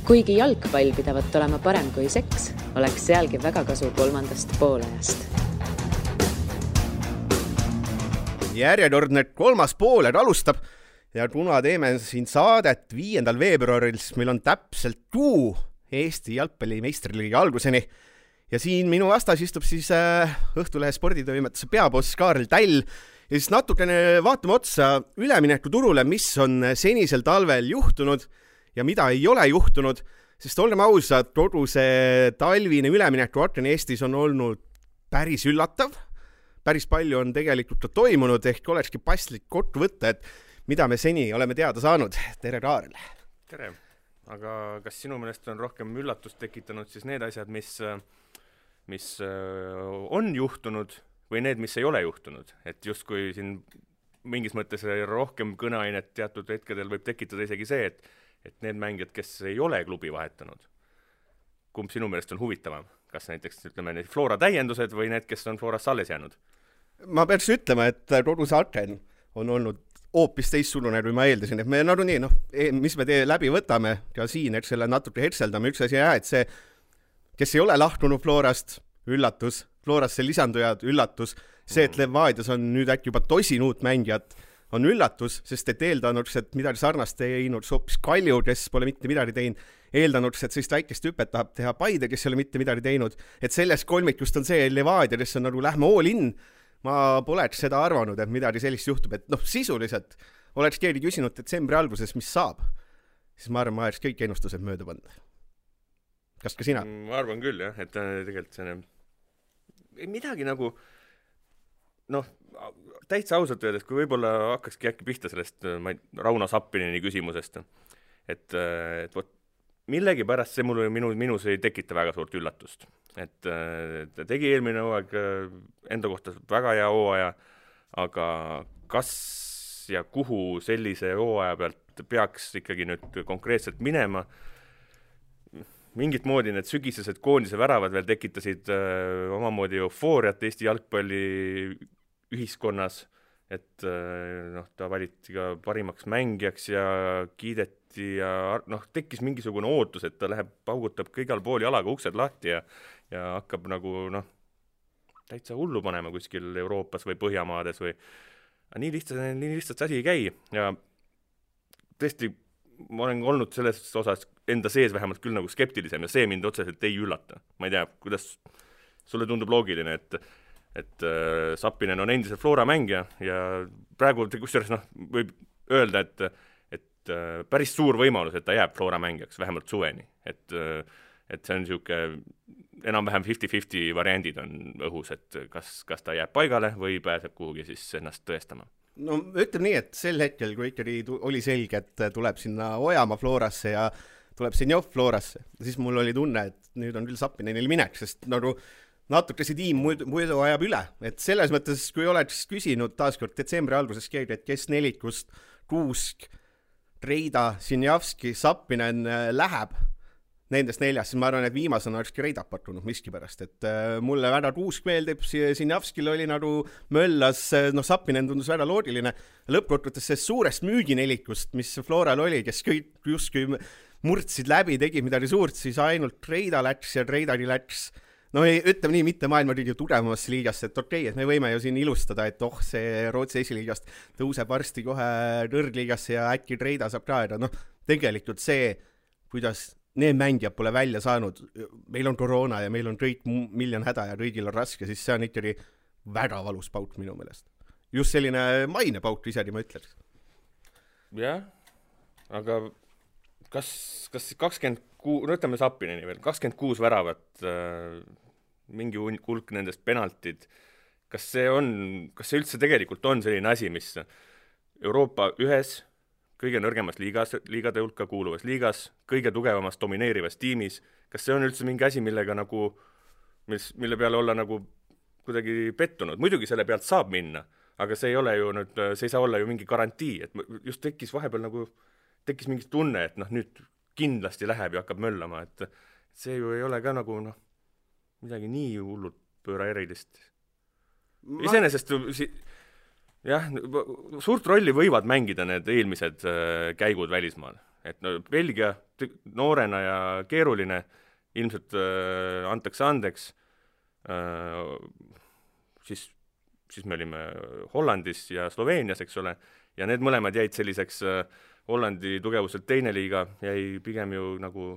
Kuigi jalgpall pidavat olema parem kui seks, oleks sealgi väga kasu kolmandast poolajast. Järjekordne kolmas pooled alustab ja kuna teeme siin saadet 5. veebruaril, meil on täpselt kuu Eesti jalgpalli meistriliigi alguseni. Ja siin minu vastas istub siis Õhtulehe sporditoimetuse peaboss Kaarel Täll ja siis natukene vaatame otsa ülemineku turule, mis on senisel talvel juhtunud ja mida ei ole juhtunud, sest olgem ausad, kogu see talvine ülemineku aken Eestis on olnud päris üllatav. Päris palju on tegelikult toimunud, ehk olekski paslik kokku võtta, et mida me seni oleme teada saanud. Tere, Kaarel! Tere! Aga kas sinu meelest on rohkem üllatust tekitanud siis need asjad, mis on juhtunud või need, mis ei ole juhtunud? Et justkui siin mingis mõttes rohkem kõneainet teatud hetkedel võib tekitada isegi see, et need mängijad, kes ei ole klubi vahetanud, kumb sinu meelest on huvitavam? Kas näiteks ütleme need Flora täiendused või need, kes on Floras alles jäänud? Ma peaks ütlema, et kogu see aken on olnud hoopis teistsugune, kui ma eeldasin, et me nagunii, mis me läbi võtame ka siin, eks selle natuke hetseldame, üks asi et see, kes ei ole lahtunud Florast, üllatus, Florasse lisandujad, üllatus, see, et Levadias on nüüd äkki juba tosin uut mängijat, on üllatus, sest et eeldanuks, et midagi sarnast teinud hoopis Kalju, kes pole mitte midagi teinud, eeldanuks, et sellist väikest hüpet tahab teha Paide, kes ei ole mitte midagi teinud, et sellest kolmikust on see Levadia, kes on nagu lähme all in. Ma poleks seda arvanud, et midagi sellist juhtub, et sisuliselt oleks keegi küsinud detsembri alguses, mis saab, siis ma arvan, ma oleks kõik ennustused mööda pannud. Kas ka sina? Ma arvan küll, jah, et tegelikult see midagi nagu täitsa ausalt öeldes, kui võib-olla hakkakski äkki pihta sellest Rauno Sappinini küsimusest, et millegi pärast see minus ei tekita väga suurt üllatust. Et ta tegi eelmine hooaeg enda kohta väga hea hooaja, aga kas ja kuhu sellise hooaja pealt peaks ikkagi nüüd konkreetselt minema? Mingit moodi need sügisesed koondise väravad veel tekitasid omamoodi eufooriat Eesti jalgpalli ühiskonnas, et ta valiti ka parimaks mängijaks ja kiideti ja tekkis mingisugune ootus, et ta läheb, paugutab kõigal pool jalaga uksed lahti ja hakkab nagu täitsa hullu panema kuskil Euroopas või Põhjamaades või nii lihtsalt asi ei käi ja tõesti ma olen olnud selles osas enda sees vähemalt küll nagu skeptilisem ja see mind otseselt ei üllata. Ma ei tea, kuidas sulle tundub loogiline, et Sappinen on endiselt Flora mängija ja praegu kusjuures võib öelda, et päris suur võimalus, et ta jääb Flora mängijaks vähemalt suveni, et see on niisugune enam-vähem 50-50 variandid on õhus, et kas ta jääb paigale või pääseb kuhugi siis ennast tõestama. Ütleme nii, et sel hetkel, kui ikkagi oli selge, et tuleb sinna Ojamaa Florasse ja tuleb Senjov Florasse, siis mul oli tunne, et nüüd on küll Sappinenil minek, sest natuke see tiim muidu ajab üle. Et selles mõttes, kui oleks küsinud taaskord detsembri alguses keegi, et kes nelikust Kuusk, Treida, Sinjavski, Sappinen läheb nendest neljast, siis ma arvan, et viimasena olekski Reida pakkunud miskipärast, et mulle väga Kuusk meeldib, Sinjavskil oli nagu möllas, Sappinen tundus väga loogiline, lõppkokkuvõttes see suurest müüginelikust, mis Floral oli, kes kõik justkui murdsid läbi, tegi midagi suurt, siis ainult Treida läks ja Treidagi läks, ütleme nii, mitte maailma kõige tugevamasse liigast, et okei, et me võime ju siin ilustada, et see Rootsi esiliigast tõuseb varsti kohe kõrgliigasse ja äkki Treida saab ka, aga tegelikult see, kuidas need mängijad pole välja saanud, meil on koroona ja meil on kõik miljon häda ja kõigil on raske, siis see on ikkagi väga valus pauk minu meelest. Just selline maine pauk isegi ma ütleks. Jah, aga kas 26, ütleme Sappineni veel, 26 väravat, mingi hulk nendest penaltid, kas see üldse tegelikult on selline asi, mis Euroopa ühes kõige nõrgemas liigade hulka kuuluvas liigas, kõige tugevamas domineerivas tiimis, kas see on üldse mingi asi, millega mille peale olla nagu kuidagi pettunud? Muidugi selle pealt saab minna, aga see ei saa olla ju mingi garantii, et just tekkis vahepeal tekkis mingi tunne, et nüüd kindlasti läheb ja hakkab möllama, et see ju ei ole ka midagi nii hullult pööra erilist. Iseenesest jah, suurt rolli võivad mängida need eelmised käigud välismaal. Et Belgia noorena ja keeruline, ilmselt antakse andeks, siis me olime Hollandis ja Sloveenias, eks ole, ja need mõlemad jäid selliseks Hollandi tugevuselt teine liiga, jäi pigem ju nagu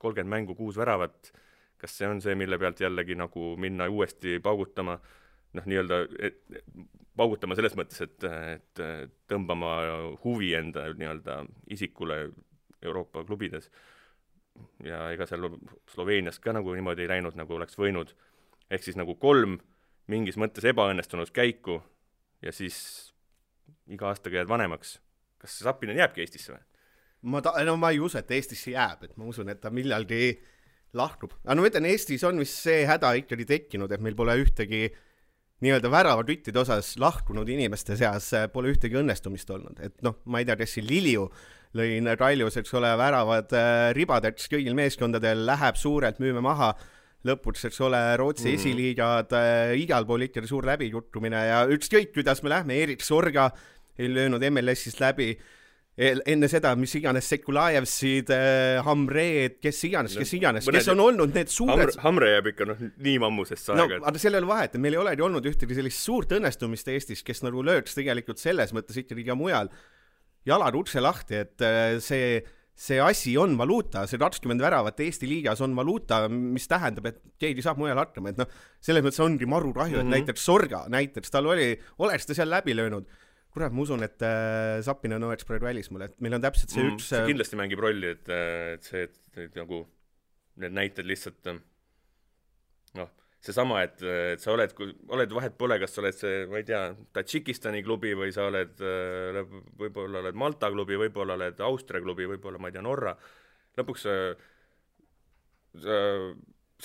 30 mängu 6 väravat, kas see on see, mille pealt jällegi nagu minna uuesti paugutama, nii-öelda paugutama selles mõttes, et tõmbama huvi enda nii-öelda isikule Euroopa klubides. Ja ega seal Sloveenias ka nagu niimoodi ei läinud, nagu oleks võinud. Ehk siis nagu 3 mingis mõttes ebaõnnestunud käiku ja siis iga aastaga jääd vanemaks. Kas see Zappinen jääbki Eestisse või? Ma ei usu, et Eestisse jääb, et ma usun, et ta millalgi lahkub. Aga ma ütlen, Eestis on vist see häda ikkagi tekkinud, et meil pole ühtegi nii-öelda väravatüttide osas lahkunud inimeste seas pole ühtegi õnnestumist olnud. Et ma ei tea, kes siin Liliu lõin Kaljus, eks ole, väravad ribadeks kõigil meeskondadel, läheb suurelt, müüme maha, lõpuks, eks ole, Rootsi esiliigad, igal pool ikkagi suur läbijuttumine ja ükskõik, kuidas me lähme, Erik Sorga ei löönud MLS-ist läbi, enne seda, mis iganes Sekulajevsid, Hamreed, kes iganes, kes on olnud need suured... Hamre jääb ikka nii mammusest saega. Aga seal ei ole vahet, et meil ei olegi olnud ühtegi sellist suurt õnnestumist Eestis, kes nagu lööks tegelikult selles mõttes ikkagi ka mujal jalad ukse lahti, et see asi on valuuta, see 20 väravat Eesti liigas on valuuta, mis tähendab, et keegi saab mujal hakkama, et selles mõttes ongi maru kahju, et näiteks Sorga, tal oleks ta seal läbi löönud. Kurat, ma usun, et Zappinen oleks praegu välismaal, et meil on täpselt see üks... See kindlasti mängib rolli, et et nagu need näited lihtsalt seesama, et sa oled vahet pole, kas sa oled see, ma ei tea, Tadžikistani klubi või sa oled võib-olla oled Malta klubi, võib-olla oled Austria klubi, võib-olla, ma ei tea, Norra. Lõpuks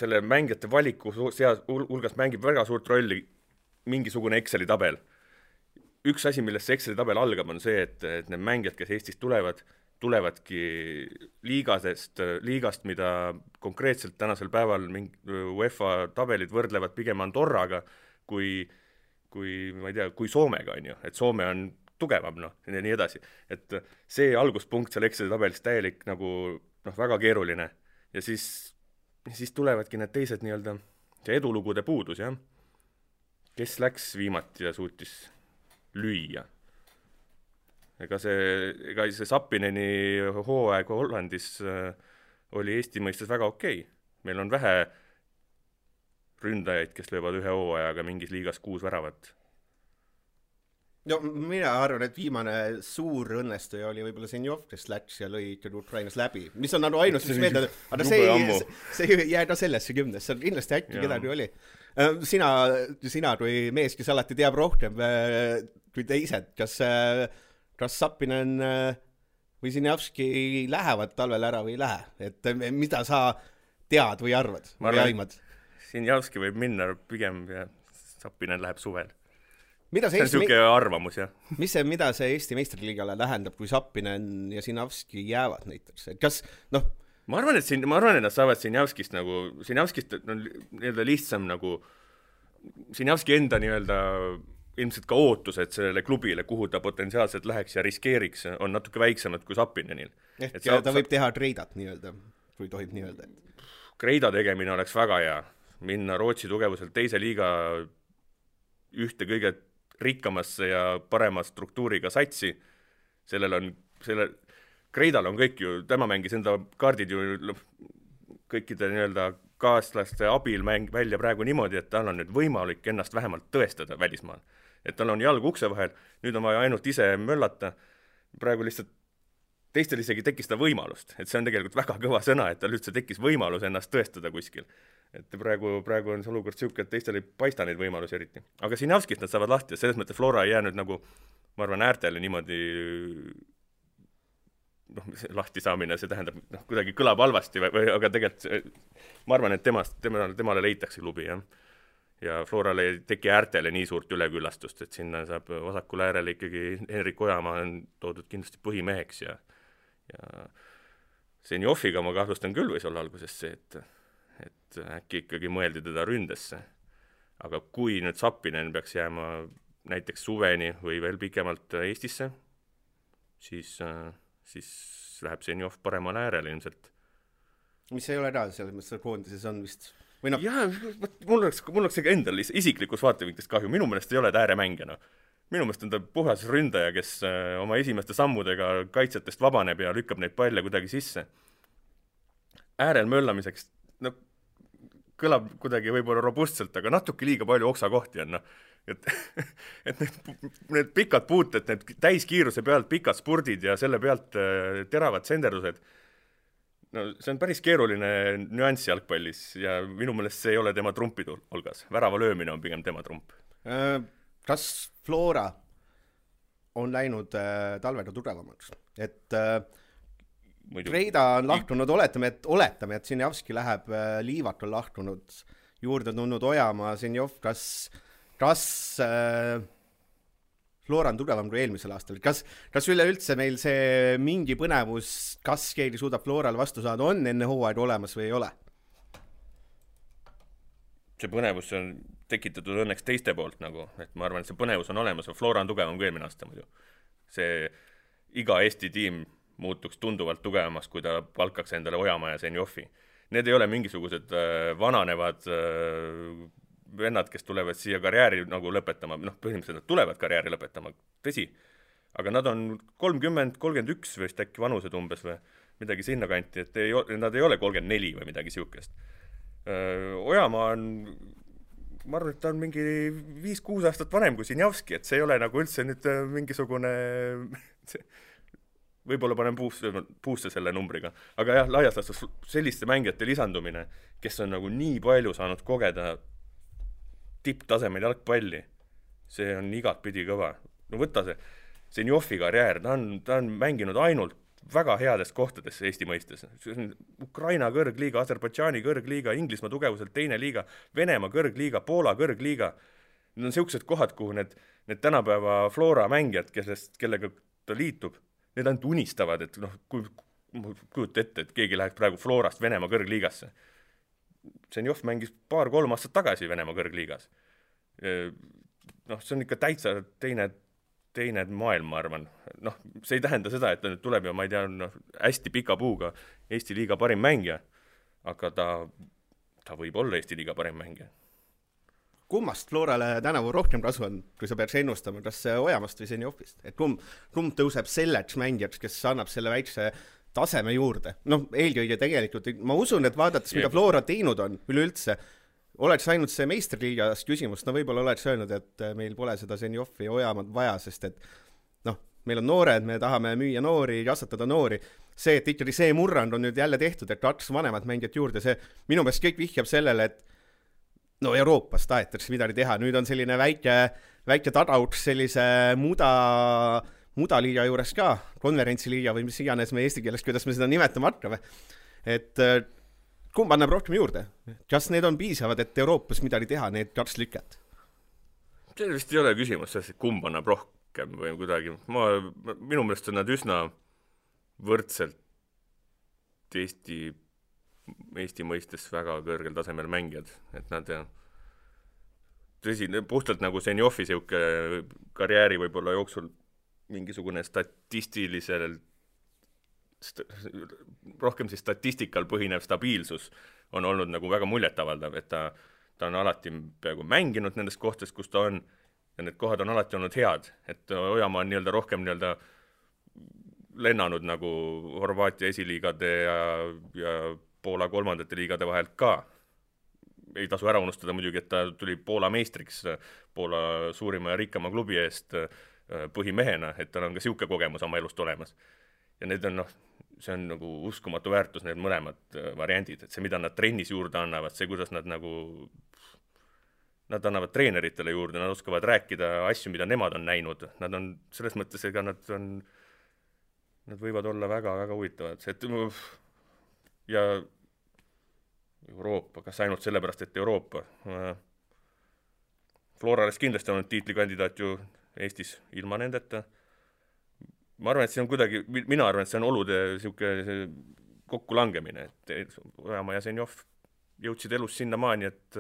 selle mängijate valiku hulgas mängib väga suurt rolli mingisugune Exceli tabel. Üks asi, millest see Exceli tabel algab, on see, et need mängijad, kes Eestist tulevadki liigast, mida konkreetselt tänasel päeval UEFA tabelid võrdlevad pigem Andorraga kui ma ei tea, kui Soomega, on ju. Et Soome on tugevam, ja nii edasi. Et see alguspunkt seal Exceli tabelis täielik nagu väga keeruline. Ja siis tulevadki need teised nii-öelda see edulugude puudus, jah. Kes läks viimati ja suutis lüüa. Ega see Zappineni hooaeg Hollandis oli Eesti mõistes väga okei. Meil on vähe ründajaid, kes löövad ühe hooajaga mingis liigas 6 väravat. No mina arvan, et viimane suur õnnestuja oli võib-olla Senjov, kes läks ja lõi Ukrainas läbi. Mis on ainus, mis meeldab, aga see ei jää ka sellesse 10. See on kindlasti äkki kedagi oli. Sina kui mees, kes alati teab rohkem kui teised, kas Zappinen või Sinjavski lähevad talvel ära või ei lähe? Et mida sa tead või arvad? Või aimad? Sinjavski võib minna pigem ja Zappinen läheb suvel. See on siuke arvamus, jah. Mida see Eesti meistriliigale tähendab, kui Zappinen ja Sinjavski jäävad näiteks? Kas, Ma arvan, et nad saavad Sinjavskist nii-öelda lihtsam nagu Sinjavski enda nii-öelda ilmselt ka ootused sellele klubile, kuhu ta potentsiaalselt läheks ja riskeeriks, on natuke väiksemad kui Zappinenil. Ta võib teha Kreidat nii-öelda, kui tohib nii-öelda. Kreida tegemine oleks väga hea. Minna Rootsi tugevuselt teise liiga ühte kõige rikkamasse ja parema struktuuriga satsi. Kreidal on kõik ju, tema mängis enda kaardid ju kõikide nii-öelda kaaslaste abil välja praegu niimoodi, et tal on nüüd võimalik ennast vähemalt tõestada välismaal. Et tal on jalg ukse vahel, nüüd on vaja ainult ise möllata. Praegu lihtsalt teistel isegi tekkis ta võimalust, et see on tegelikult väga kõva sõna, et tal üldse tekkis võimalus ennast tõestada kuskil. Et praegu on see olukord siuke, et teistel ei paista neid võimalusi eriti. Aga Sinjavskist nad saavad lahti ja selles mõttes Flora ei jäänud nagu, ma arvan, äärtele niimoodi lahti saamine, see tähendab, kuidagi kõlab halvasti, aga tegelikult ma arvan, et temale leitakse klubi, jah. Ja Florale ei teki äärtele nii suurt üleküllastust, et sinna saab vasakul äärele ikkagi Henrik Ojamaa on toodud kindlasti põhimeheks ja Senjofiga ma kahtlustan küll võis olla alguses see, et äkki ikkagi mõeldi teda ründesse. Aga kui nüüd Zappinen peaks jääma näiteks suveni või veel pikemalt Eestisse, siis siis läheb Zenjov paremale äärele ilmselt. mis ei ole ära, selles mõttes koondises on vist või noh. Jaa, mul oleks ega endal isiklikus vaatevinklist kahju, minu meelest ei ole ta ääremängija, noh. Minu meelest on ta puhas ründaja, kes oma esimeste sammudega kaitsetest vabaneb ja lükkab neid palle kuidagi sisse. Äärel möllamiseks, no kõlab kuidagi võib-olla robustselt, aga natuke liiga palju oksakohti on, noh. Et need pikad puuted, need täiskiiruse pealt pikad spurdid ja selle pealt teravad senderdused, no see on päris keeruline nüanss jalgpallis ja minu meelest see ei ole tema trumpi hulgas. Värava löömine on pigem tema trump. Kas Flora on läinud talvega tugevamaks? Et Reida on lahtunud, oletame, et Zenjavski läheb, Liivat on lahtunud, juurde tulnud Ojamaa, Zenjov, kas Flora on tugevam kui eelmisel aastal? Kas üleüldse meil see mingi põnevus, kas keegi suudab Floral vastu saada, on enne hooaega olemas või ei ole? See põnevus on tekitatud õnneks teiste poolt nagu, et ma arvan, et see põnevus on olemas, Flora on tugevam kui eelmine aasta muidu. See iga Eesti tiim muutuks tunduvalt tugevamaks, kui ta palkaks endale Ojamaa ja Zenjovi. Need ei ole mingisugused vananevad vennad, kes tulevad siia karjääri nagu lõpetama, noh, põhimõtteliselt nad tulevad karjääri lõpetama, tõsi, aga nad on 30, 31 vist äkki vanused umbes või midagi sinna kanti, et nad ei ole 34 või midagi siukest. Ojamaa on, ma arvan, et ta on mingi 5-6 aastat vanem kui Zenjavski, et see ei ole nagu üldse nüüd mingisugune võib-olla panen puusse selle numbriga, aga jah, laias laastus selliste mängijate lisandumine, kes on nagu nii palju saanud kogeda tipptasemel jalgpalli, see on igat pidi kõva. No võtta see Zenjovi karjäär, ta on mänginud ainult väga headest kohtades Eesti mõistes. Ukraina kõrgliiga, Aserbaidžaani kõrgliiga, Inglismaa tugevuselt teine liiga, Venemaa kõrgliiga, Poola kõrgliiga. Need on sellised kohad, kuhu need tänapäeva Flora mängijad, kellega ta liitub, need ainult unistavad, et noh, kujuta ette, et keegi läheb praegu Florast Venemaa kõrgliigasse. Zenjov mängis 2-3 aastat tagasi Venemaa kõrgliigas. Noh, see on ikka täitsa teine maailm, ma arvan. Noh, see ei tähenda seda, et ta nüüd tuleb ja ma ei tea, hästi pika puuga Eesti liiga parim mängija, aga ta võib olla Eesti liiga parim mängija. Kummast Florale tänavu rohkem kasu on, kui sa peaks ennustama, kas Ojamast või Zenjovist? Et kumb tõuseb selleks mängijaks, kes annab selle väikse taseme juurde? Noh, eelkõige tegelikult, ma usun, et vaadates, mida Flora teinud on üleüldse, oleks ainult see meisterliigas küsimus, no võib-olla oleks öelnud, et meil pole seda Zenjovi Ojamaad vaja, sest et noh, meil on noored, me tahame müüa noori, kasvatada noori. See, et ikkagi see murrand on nüüd jälle tehtud, et 2 vanemat mängijat juurde, see minu meelest kõik vihjab sellele, et no Euroopas tahetakse midagi teha, nüüd on selline väike tadauks sellise mudaliiga juures ka, konverentsiliiga või mis iganes me eesti keeles, kuidas me seda nimetama hakkame. Et kumb annab rohkem juurde? Kas need on piisavad, et Euroopas midagi teha, need 2 lüket? See vist ei ole küsimus, et kumb annab rohkem või kuidagi. Minu meelest on nad üsna võrdselt Eesti mõistes väga kõrgel tasemel mängijad, et nad tõsi, puhtalt nagu Zenjovi siuke karjääri võib-olla jooksul mingisugune rohkem siis statistikal põhinev stabiilsus on olnud nagu väga muljetavaldav, et ta on alati peaaegu mänginud nendest kohtades, kus ta on, ja need kohad on alati olnud head, et Ojamaa on nii-öelda rohkem nii-öelda lennanud nagu Horvaatia esiliigade ja Poola 3. liigade vahelt ka. Ei tasu ära unustada muidugi, et ta tuli Poola meistriks Poola suurima ja rikkama klubi eest põhimehena, et tal on ka siuke kogemus oma elust olemas. Ja need on, see on nagu uskumatu väärtus, need mõlemad variandid, et see, mida nad trennis juurde annavad, see, kuidas nad annavad treeneritele juurde, nad oskavad rääkida asju, mida nemad on näinud, nad on selles mõttes, ega nad võivad olla väga-väga huvitavad, et ja Euroopa, kas ainult sellepärast, et Euroopa. Florales kindlasti on tiitlikandidaat ju Eestis ilma nendeta. Ma arvan, et see on kuidagi, mina arvan, et see on olude kokku langemine, et Ojamaa ja Zenjov jõudsid elus sinna maani, et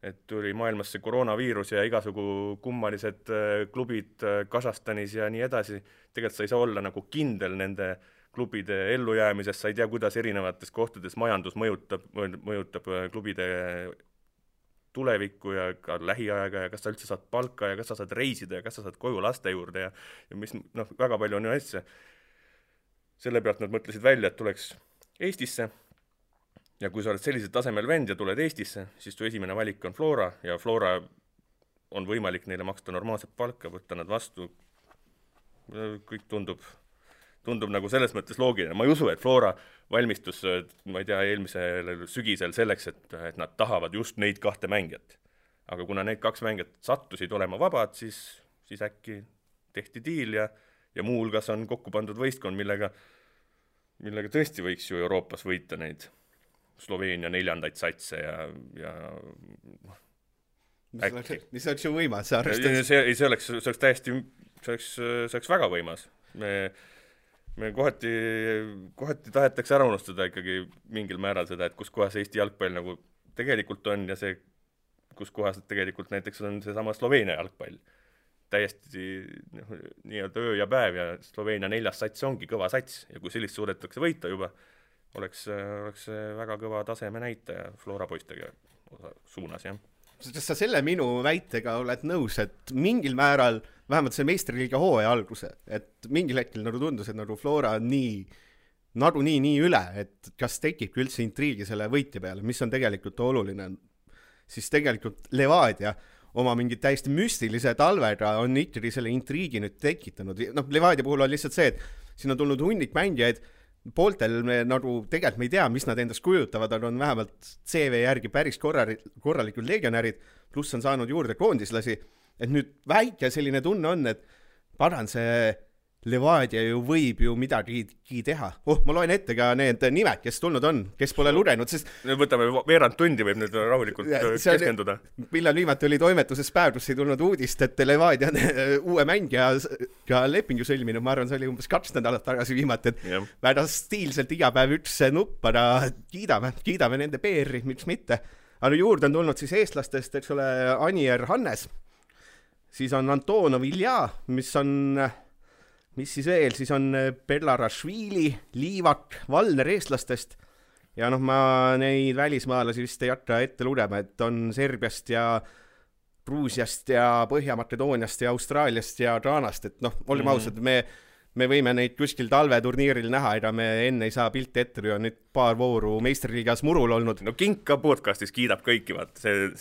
et tuli maailmas see koroonaviirus ja igasugu kummalised klubid Kasahstanis ja nii edasi. Tegelikult sa ei saa olla nagu kindel nende klubide ellujäämisest, sa ei tea, kuidas erinevates kohtades majandus mõjutab klubide tulevikku ja ka lähiaega ja kas sa üldse saad palka ja kas sa saad reisida ja kas sa saad koju laste juurde ja mis, väga palju on ju asja. Selle pealt nad mõtlesid välja, et tuleks Eestisse ja kui sa oled sellisel tasemel vend ja tuled Eestisse, siis tu esimene valik on Flora ja Flora on võimalik neile maksta normaalset palka, võtta nad vastu. Kõik tundub nagu selles mõttes loogiline. Ma ei usu, et Flora valmistus, ma ei tea, eelmisel sügisel selleks, et nad tahavad just neid 2 mängijat. Aga kuna need 2 mängijat sattusid olema vabad, siis äkki tehti diil ja muu hulgas on kokku pandud võistkond, millega tõesti võiks ju Euroopas võita neid Sloveenia 4. satse ja äkki. Mis oleks ju võimas? See oleks täiesti, see oleks väga võimas. Me kohati tahetakse ära unustada ikkagi mingil määral seda, et kus kohas Eesti jalgpall nagu tegelikult on ja see, kus kohas tegelikult näiteks on see sama Sloveenia jalgpall. Täiesti nii-öelda öö ja päev ja Sloveenia 4. sats ongi kõva sats ja kui sellist suudetakse võita juba, oleks väga kõva taseme näitaja Flora poistega suunas, jah. Kas sa selle minu väitega oled nõus, et mingil määral, vähemalt see meistriliiga hooaja alguse, et mingil hetkel nagu tundus, et nagu Flora on nii üle, et kas tekib üldse intriigi selle võitja peale, mis on tegelikult oluline, siis tegelikult Levadia oma mingid täiesti müstilise talvega on ikkagi selle intriigi nüüd tekitanud. Levadia puhul on lihtsalt see, et siin on tulnud hunnik mängijaid, pooltel me nagu tegelikult me ei tea, mis nad endast kujutavad, aga on vähemalt CV järgi päris korralikud legionärid, pluss on saanud juurde koondislasi, et nüüd väike selline tunne on, et paran see Levadia ju võib ju midagi teha. Ma loen ette ka need nimed, kes tulnud on, kes pole lugenud, sest... Võtame veerand tundi, võib nüüd rahulikult keskenduda. Millal viimati oli toimetuses päev, kus ei tulnud uudist, et Levadia uue mängija ka lepingu sõlminud, ma arvan, see oli umbes 2 nädalat tagasi viimati, et väga stiilselt iga päev üks nupp, aga kiidame nende PR-i, miks mitte. Aga juurde on tulnud siis eestlastest, eks ole, Anier Hannes, siis on Antonov Ilja, mis siis veel, siis on Belarashvili, Liivak, Valner eestlastest ja ma neid välismaalasi vist ei hakka ette lugema, et on Serbiast ja Gruusiast ja Põhja-Makedooniast ja Austraaliast ja Ghanast, et olime ausad, me võime neid kuskil talveturniiril näha, ega me enne ei saa pilti ette, kui on nüüd paar vooru meistriliigas murul olnud. Kink ka podcastis kiidab kõiki, vaat see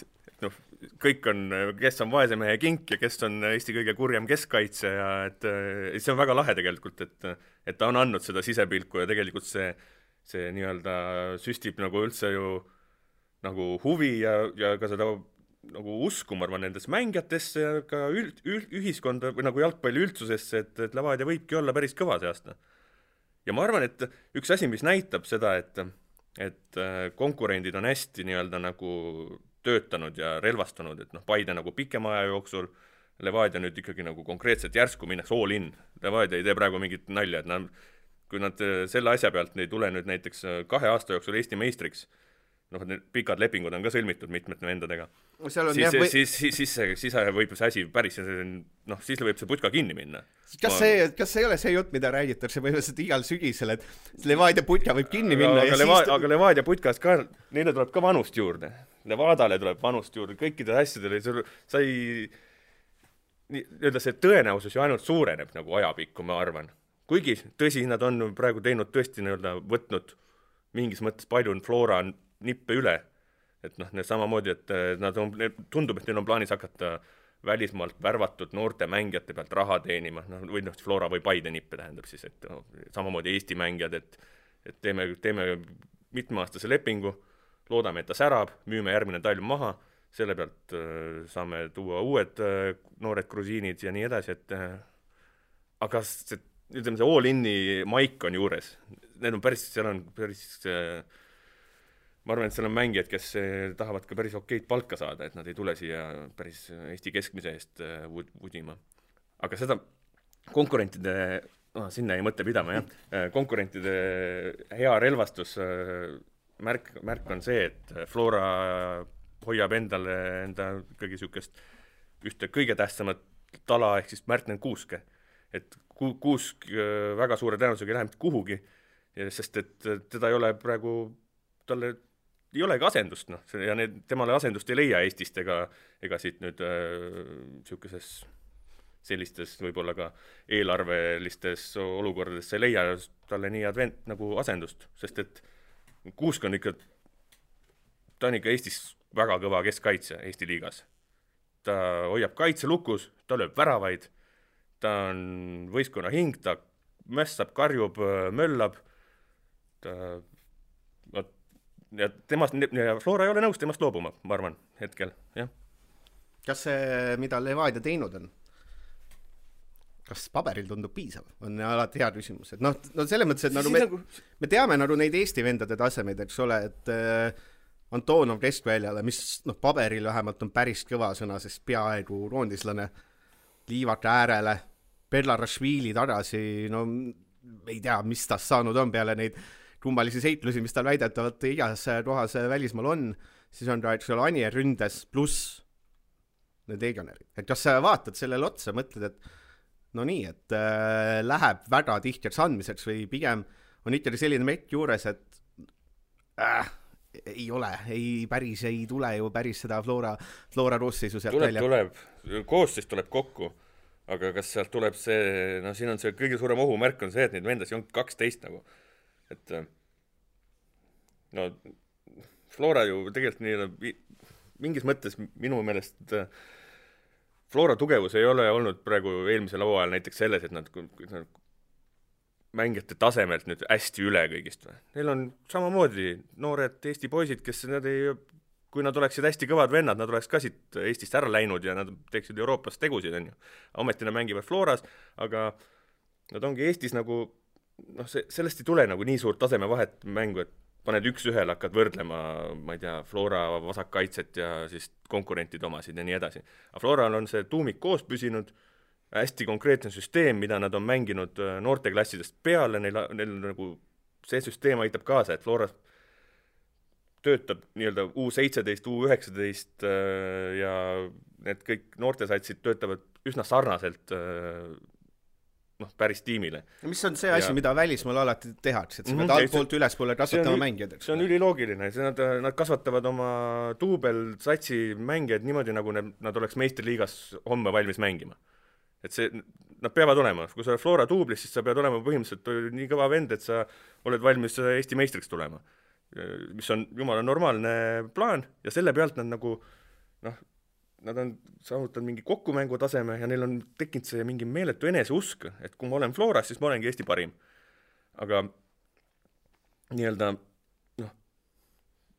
kõik on, kes on vaese mehe Kink ja kes on Eesti kõige kurjem keskkaitse ja et see on väga lahe tegelikult, et ta on andnud seda sisepilku ja tegelikult see nii-öelda süstib nagu üldse ju nagu huvi ja ka seda nagu usku, ma arvan, nendes mängijatesse ja ka ühiskonda või nagu jalgpalli üldsusesse, et Levadia võibki olla päris kõva see aasta. Ja ma arvan, et üks asi, mis näitab seda, et konkurendid on hästi nii-öelda nagu töötanud ja relvastunud, et Paide nagu pikema aja jooksul, Levadia nüüd ikkagi nagu konkreetselt järsku minnaks all in. Levadia ei tee praegu mingit nalja, et kui nad selle asja pealt ei tule nüüd näiteks 2 aasta jooksul Eesti meistriks, need pikad lepingud on ka sõlmitud mitmete vendadega, siis võib see asi päris, siis võib see putka kinni minna. Kas see ei ole see jutt, mida räägitakse põhimõtteliselt igal sügisel, et Levadia putka võib kinni minna? Aga Levadia putkas ka, neile tuleb ka vanust juurde. Levadale tuleb vanust juurde, kõikide asjadele, see tõenäosus ju ainult suureneb nagu ajapikku, ma arvan. Kuigi tõsi, nad on praegu teinud tõesti võtnud mingis mõttes palju Flora nippe üle, et samamoodi, et tundub, et neil on plaanis hakata välismaalt värvatud noorte mängijate pealt raha teenima, või Flora või Paide nippe tähendab siis, et samamoodi Eesti mängijad, et teeme mitmeaastase lepingu, loodame, et ta särab, müüme järgmine talv maha, selle pealt saame tuua uued noored grusiinid ja nii edasi, et aga see all-in'i maik on juures. Need on päris, ma arvan, et seal on mängijad, kes tahavad ka päris okeid palka saada, et nad ei tule siia päris Eesti keskmise eest vudima. Aga seda konkurentide, sinna ei mõtle pidama, jah. Konkurentide hea relvastus märk on see, et Flora hoiab enda ikkagi niisugust ühte kõige tähtsamat tala ehk siis Märtnen Kuuske. Et Kuusk väga suure tõenäosusega ei lähe mitte kuhugi, sest et teda ei ole praegu, talle ei olegi asendust, noh, ja temale asendust ei leia Eestist ega siit nüüd niisuguses sellistes võib-olla ka eelarvelistes olukordades ei leia talle nii advent nagu asendust, sest et Kuusk on ikka, ta on ikka Eestis väga kõva keskkaitse Eesti liigas. Ta hoiab kaitse lukus, ta lööb väravaid, ta on võistkonna hing, ta mässab, karjub, möllab, ja Flora ei ole nõus temast loobuma, ma arvan, hetkel, jah. Kas see, mida Levadia teinud on? Kas paberil tundub piisav? On alati hea küsimus. Et no selles mõttes, et me teame neid Eesti vendade tasemeid, eks ole, et Antonov keskväljale, mis paberil vähemalt on päris kõva sõna, sest peaaegu roondislane, Liivak äärele, Belarashvili tagasi, ei tea, mis tast saanud on peale neid kummalisi seitlusi, mis tal väidetavalt igas kohas välismaal on, siis on ta, eks ole, Anier ründes pluss need legionärid. Et kas sa vaatad sellele otsa, mõtled, et no nii, et läheb väga tihtiks andmiseks või pigem on ikkagi selline mekk juures, et ei ole, päris ei tule ju päris seda Flora koosseisu sealt välja. Koosseis tuleb kokku, aga kas sealt tuleb see, siin on see kõige suurem ohumärk on see, et neid vendasi on 12 nagu. Et Flora ju tegelikult nii, mingis mõttes minu meelest Flora tugevus ei ole olnud praegu eelmisel hooajal näiteks selles, et nad mängijate tasemelt nüüd hästi üle kõigist. Neil on samamoodi noored Eesti poisid, kes kui nad oleksid hästi kõvad vennad, nad oleks ka siit Eestist ära läinud ja nad teeksid Euroopas tegusid, on ju. Ametina mängivad Floras, aga nad ongi Eestis nagu, sellest ei tule nagu nii suurt taseme vahet mängu, et paned üks-ühel, hakkad võrdlema, ma ei tea, Flora vasakkaitset ja siis konkurentid omasid ja nii edasi. Aga Floral on see tuumik koos püsinud, hästi konkreetne süsteem, mida nad on mänginud noorteklassidest peale, neil nagu see süsteem aitab kaasa, et Flora töötab nii-öelda U17, U19 ja need kõik noortesatsid töötavad üsna sarnaselt päris tiimile. Mis on see asi, mida välismaal alati tehakse, et sa pead altpoolt ülespoole kasvatama mängijad? See on üliloogiline, nad kasvatavad oma duubel satsi mängijad niimoodi, nagu nad oleks meistriliigas homme valmis mängima. Et see, nad peavad olema, kui sa oled Flora duublis, siis sa pead olema põhimõtteliselt nii kõva vend, et sa oled valmis Eesti meistriks tulema, mis on jumala normaalne plaan ja selle pealt nad nagu nad on saavutanud mingi kokkumängu taseme ja neil on tekkinud see mingi meeletu eneseusk, et kui ma olen Floras, siis ma olengi Eesti parim. Aga nii-öelda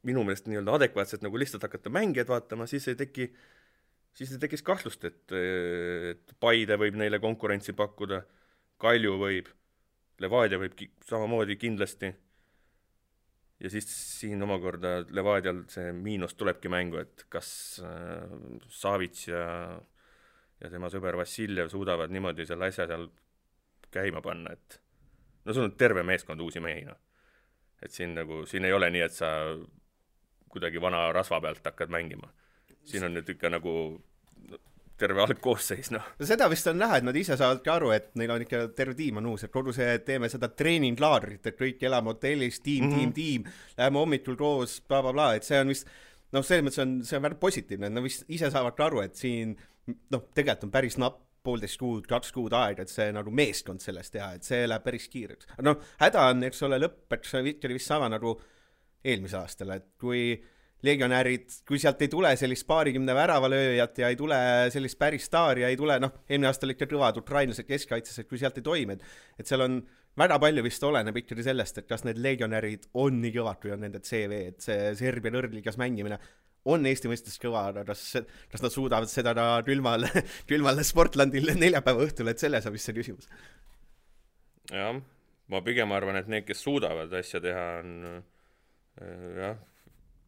minu meelest nii-öelda adekvaatselt nagu lihtsalt hakata mängijad vaatama, siis ei tekkis kahtlust, et Paide võib neile konkurentsi pakkuda, Kalju võib, Levadia võib samamoodi kindlasti. Ja siis siin omakorda Levadial see miinus tulebki mängu, et kas Savits ja tema sõber Vassiljev suudavad niimoodi selle asja seal käima panna, et sul on terve meeskond uusi mehi. Et siin ei ole nii, et sa kuidagi vana rasva pealt hakkad mängima. Siin on nüüd ikka nagu terve algkoosseis, Seda vist on näha, et nad ise saavadki aru, et neil on ikka terve tiim on uus, et kogu see teeme seda treeninglaadrit, et kõik elame hotellis, tiim, läheme hommikul koos, bla, et see on vist, selles mõttes see on väga positiivne, et nad vist ise saavadki aru, et siin, tegelikult on päris napp 1,5 kuud, 2 kuud aega, et see nagu meeskond sellest teha, et see läheb päris kiireks. Häda on, eks ole, lõppeks vist sama nagu eelmise aastal, et kui legionärid, kui sealt ei tule sellist paarikümne väravalööjat ja ei tule sellist päris staari ja ei tule, eelmine aastal ikka kõvad ukrainlased keskkaitses, et kui sealt ei toime, et seal on väga palju vist oleneb ikkagi sellest, et kas need legionärid on nii kõvad, kui on nende CV, et see Serbia lõrligas mängimine on Eesti mõistes kõva, aga kas nad suudavad seda külmal Sportlandil neljapäeva õhtul, et selles on vist see küsimus. Jah, ma pigem arvan, et need, kes suudavad asja teha, on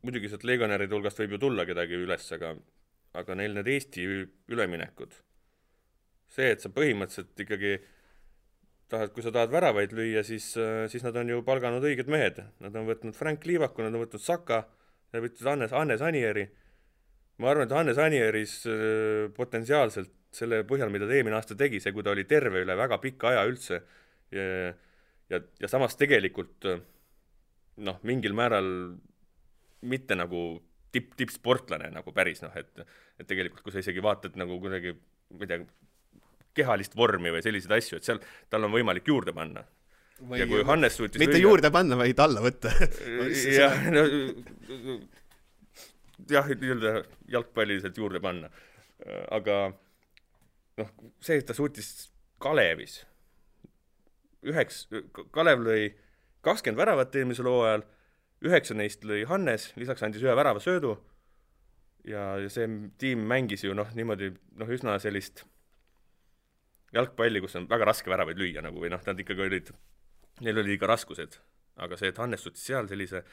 muidugi sealt legionäride hulgast võib ju tulla kedagi üles, aga neil need Eesti üleminekud. See, et sa põhimõtteliselt ikkagi kui sa tahad väravaid lüüa, siis nad on ju palganud õiged mehed. Nad on võtnud Frank Liivaku, nad on võtnud Saka, nad on võtnud Hannes Anieri ma arvan, et Hannes Anieris potentsiaalselt selle põhjal, mida ta eelmine aasta tegi, see, kui ta oli terve üle väga pika aja üldse ja samas tegelikult mingil määral mitte nagu tippsportlane nagu päris, et tegelikult, kui sa isegi vaatad nagu kuidagi, ma ei tea, kehalist vormi või selliseid asju, et seal tal on võimalik juurde panna. Ja kui Hannes suutis mitte juurde panna, vaid alla võtta. jah, jalgpalliliselt juurde panna. Aga see, et ta suutis Kalevis Kalev lõi 20 väravat eelmisel hooajal, 9 neist lõi Hannes, lisaks andis 1 värava söödu ja see tiim mängis ju niimoodi üsna sellist jalgpalli, kus on väga raske väravaid lüüa või nad ikkagi neil oli ikka raskused, aga see, et Hannes suutis seal sellise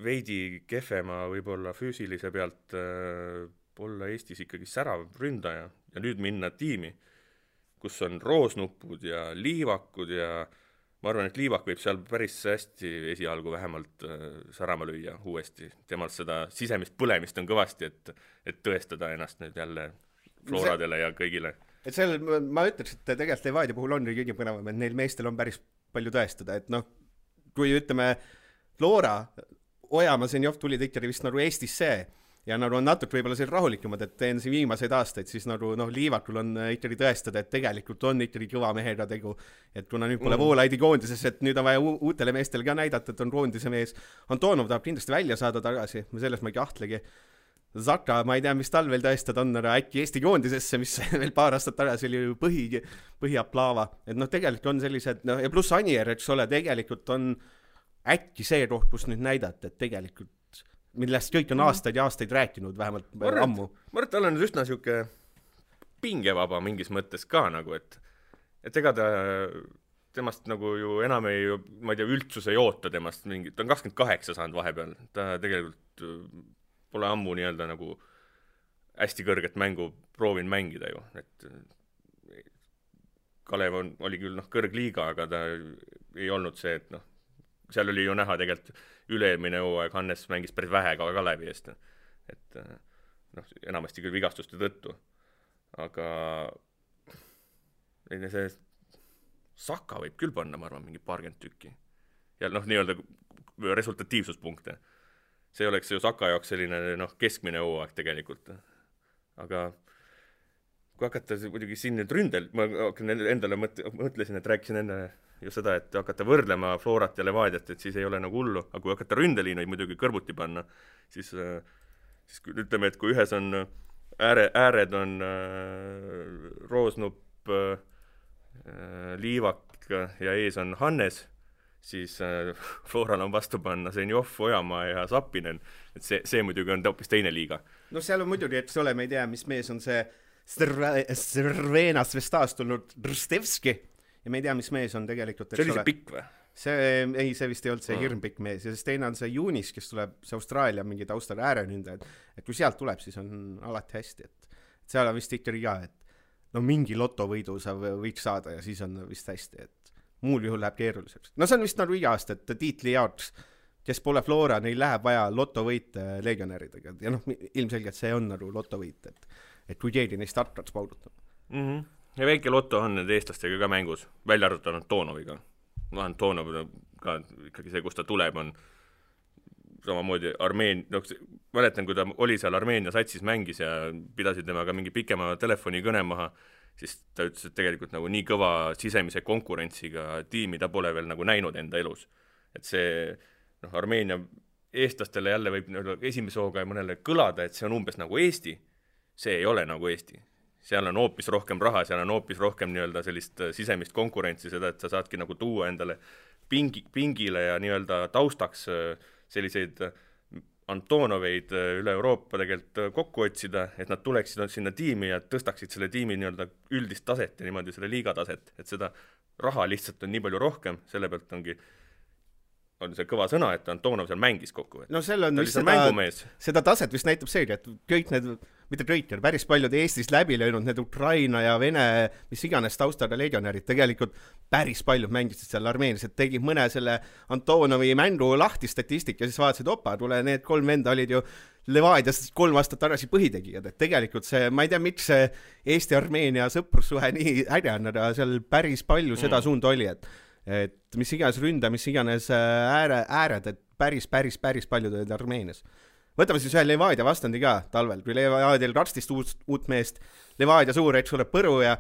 veidi kehvema võib-olla füüsilise pealt olla Eestis ikkagi särav ründaja ja nüüd minna tiimi, kus on roosnupud ja liivakud ja ma arvan, et liivak võib seal päris hästi esialgu vähemalt särama lüüa uuesti. Temal seda sisemist põlemist on kõvasti, et tõestada ennast nüüd jälle Floradele ja kõigile. Et seal ma ütleks, et tegelikult Levadia puhul on kõige põnevam, et neil meestel on päris palju tõestada, et kui ütleme Flora, Ojamaa, Zenjov tulid ikkagi vist Eestisse ja on natuke võib-olla seal rahulikumad, et teen siin viimaseid aastaid, siis Liivakul on ikkagi tõestada, et tegelikult on ikkagi kõva mehega tegu, et kuna nüüd pole Voolaidi koondises, et nüüd on vaja uutele meestele ka näidata, et on koondise mees. Antonov tahab kindlasti välja saada tagasi, selles ma ei kahtlegi. Zaka, ma ei tea, mis tal veel tõestada on, aga äkki Eesti koondisesse, mis veel paar aastat tagasi oli ju põhiaplaava. Et tegelikult on sellised, ja pluss Anier, eks ole, tegelikult on äkki see koht, kus nüüd näidata, et tegelikult millest kõik on aastaid ja aastaid rääkinud, vähemalt ammu. Ma arvan, et tal on üsna siuke pingevaba mingis mõttes ka et ega temast ju enam ma ei tea, üldsus ei oota temast mingit, ta on 28 saanud vahepeal, ta tegelikult pole ammu nii-öelda hästi kõrget mängu proovin mängida ju, et Kalev oli küll kõrgliiga, aga ta ei olnud see, et seal oli ju näha tegelikult üle-eelmine hooaeg Hannes mängis päris vähe ka Kalevi eest, et enamasti küll vigastuste tõttu, aga see Saka võib küll panna, ma arvan, mingi 20 tükki ja nii-öelda resultatiivsuspunkte. See oleks ju Saka jaoks selline keskmine hooaeg tegelikult, aga kui hakata muidugi siin nüüd ründel, ma endale mõtlesin, et rääkisin enne ju seda, et hakata võrdlema Florat ja Levadiat, et siis ei ole hullu, aga kui hakata ründeliinuid muidugi kõrvuti panna, siis ütleme, et kui ühes on ääred on roosnupp, liivak ja ees on Hannes, siis Floral on vastu panna Zenjov, Ojamaa ja Sapinen, et see muidugi on hoopis teine liiga. Seal on muidugi, eks ole, me ei tea, mis mees on see Cervenas Vestas tulnud Rstevski ja me ei tea, mis mees on tegelikult. See oli see pikk või? See vist ei olnud see hirmpikk mees ja siis teine on see Juunis, kes tuleb see Austraalia mingi taustal äärenündajad, et kui sealt tuleb, siis on alati hästi, et seal on vist ikkagi ka, et mingi lotovõidu sa võiks saada ja siis on vist hästi, et muul juhul läheb keeruliseks. See on vist iga aasta, et tiitli jaoks, kes pole Flora, neil läheb vaja lotovõite legionäridega ja ilmselgelt see on lotovõit, et kui keegi neist hakkaks paudutama. Ja väike loto on need eestlastega ka mängus, välja arvutanud Toonoviga. Toonov ka ikkagi see, kus ta tuleb, on samamoodi mäletan, kui ta oli seal Armeenia satsis mängis ja pidasid temaga mingi pikema telefonikõne maha, siis ta ütles, et tegelikult nii kõva sisemise konkurentsiga tiimi ta pole veel näinud enda elus. Et see Armeenia eestlastele jälle võib esimese hooga mõnele kõlada, et see on umbes nagu Eesti. See ei ole nagu Eesti. Seal on hoopis rohkem raha, seal on hoopis rohkem nii-öelda sellist sisemist konkurentsi, seda, et sa saadki tuua endale pingile ja nii-öelda taustaks selliseid Antonoveid üle Euroopa tegelikult kokku otsida, et nad tuleksid sinna tiimi ja tõstaksid selle tiimi nii-öelda üldist taset ja niimoodi selle liiga taset, et seda raha lihtsalt on nii palju rohkem, selle pealt on see kõva sõna, et Antonov seal mängis kokku. Seal on vist seda taset vist näitab seegi, et kõik need mitte Traitor, päris paljud Eestis läbi löönud, need Ukraina ja Vene, mis iganes taustaga legionärid, tegelikult päris paljud mängisid seal Armeenias, et tegid mõne selle Antonovi mängu lahti statistika ja siis vaatasid, opa, tule, need 3 venda olid ju Levadias 3 aastat tagasi põhitegijad, et tegelikult see, ma ei tea, miks see Eesti-Armeenia sõprussuhe nii äge on, aga seal päris palju seda suunda oli, et mis iganes ründa, mis iganes ääred, et päris paljud olid Armeenias. Võtame siis ühe Levadia vastandi ka talvel, kui Levadial 12 uut meest, Levadia suur, eks ole, põru ja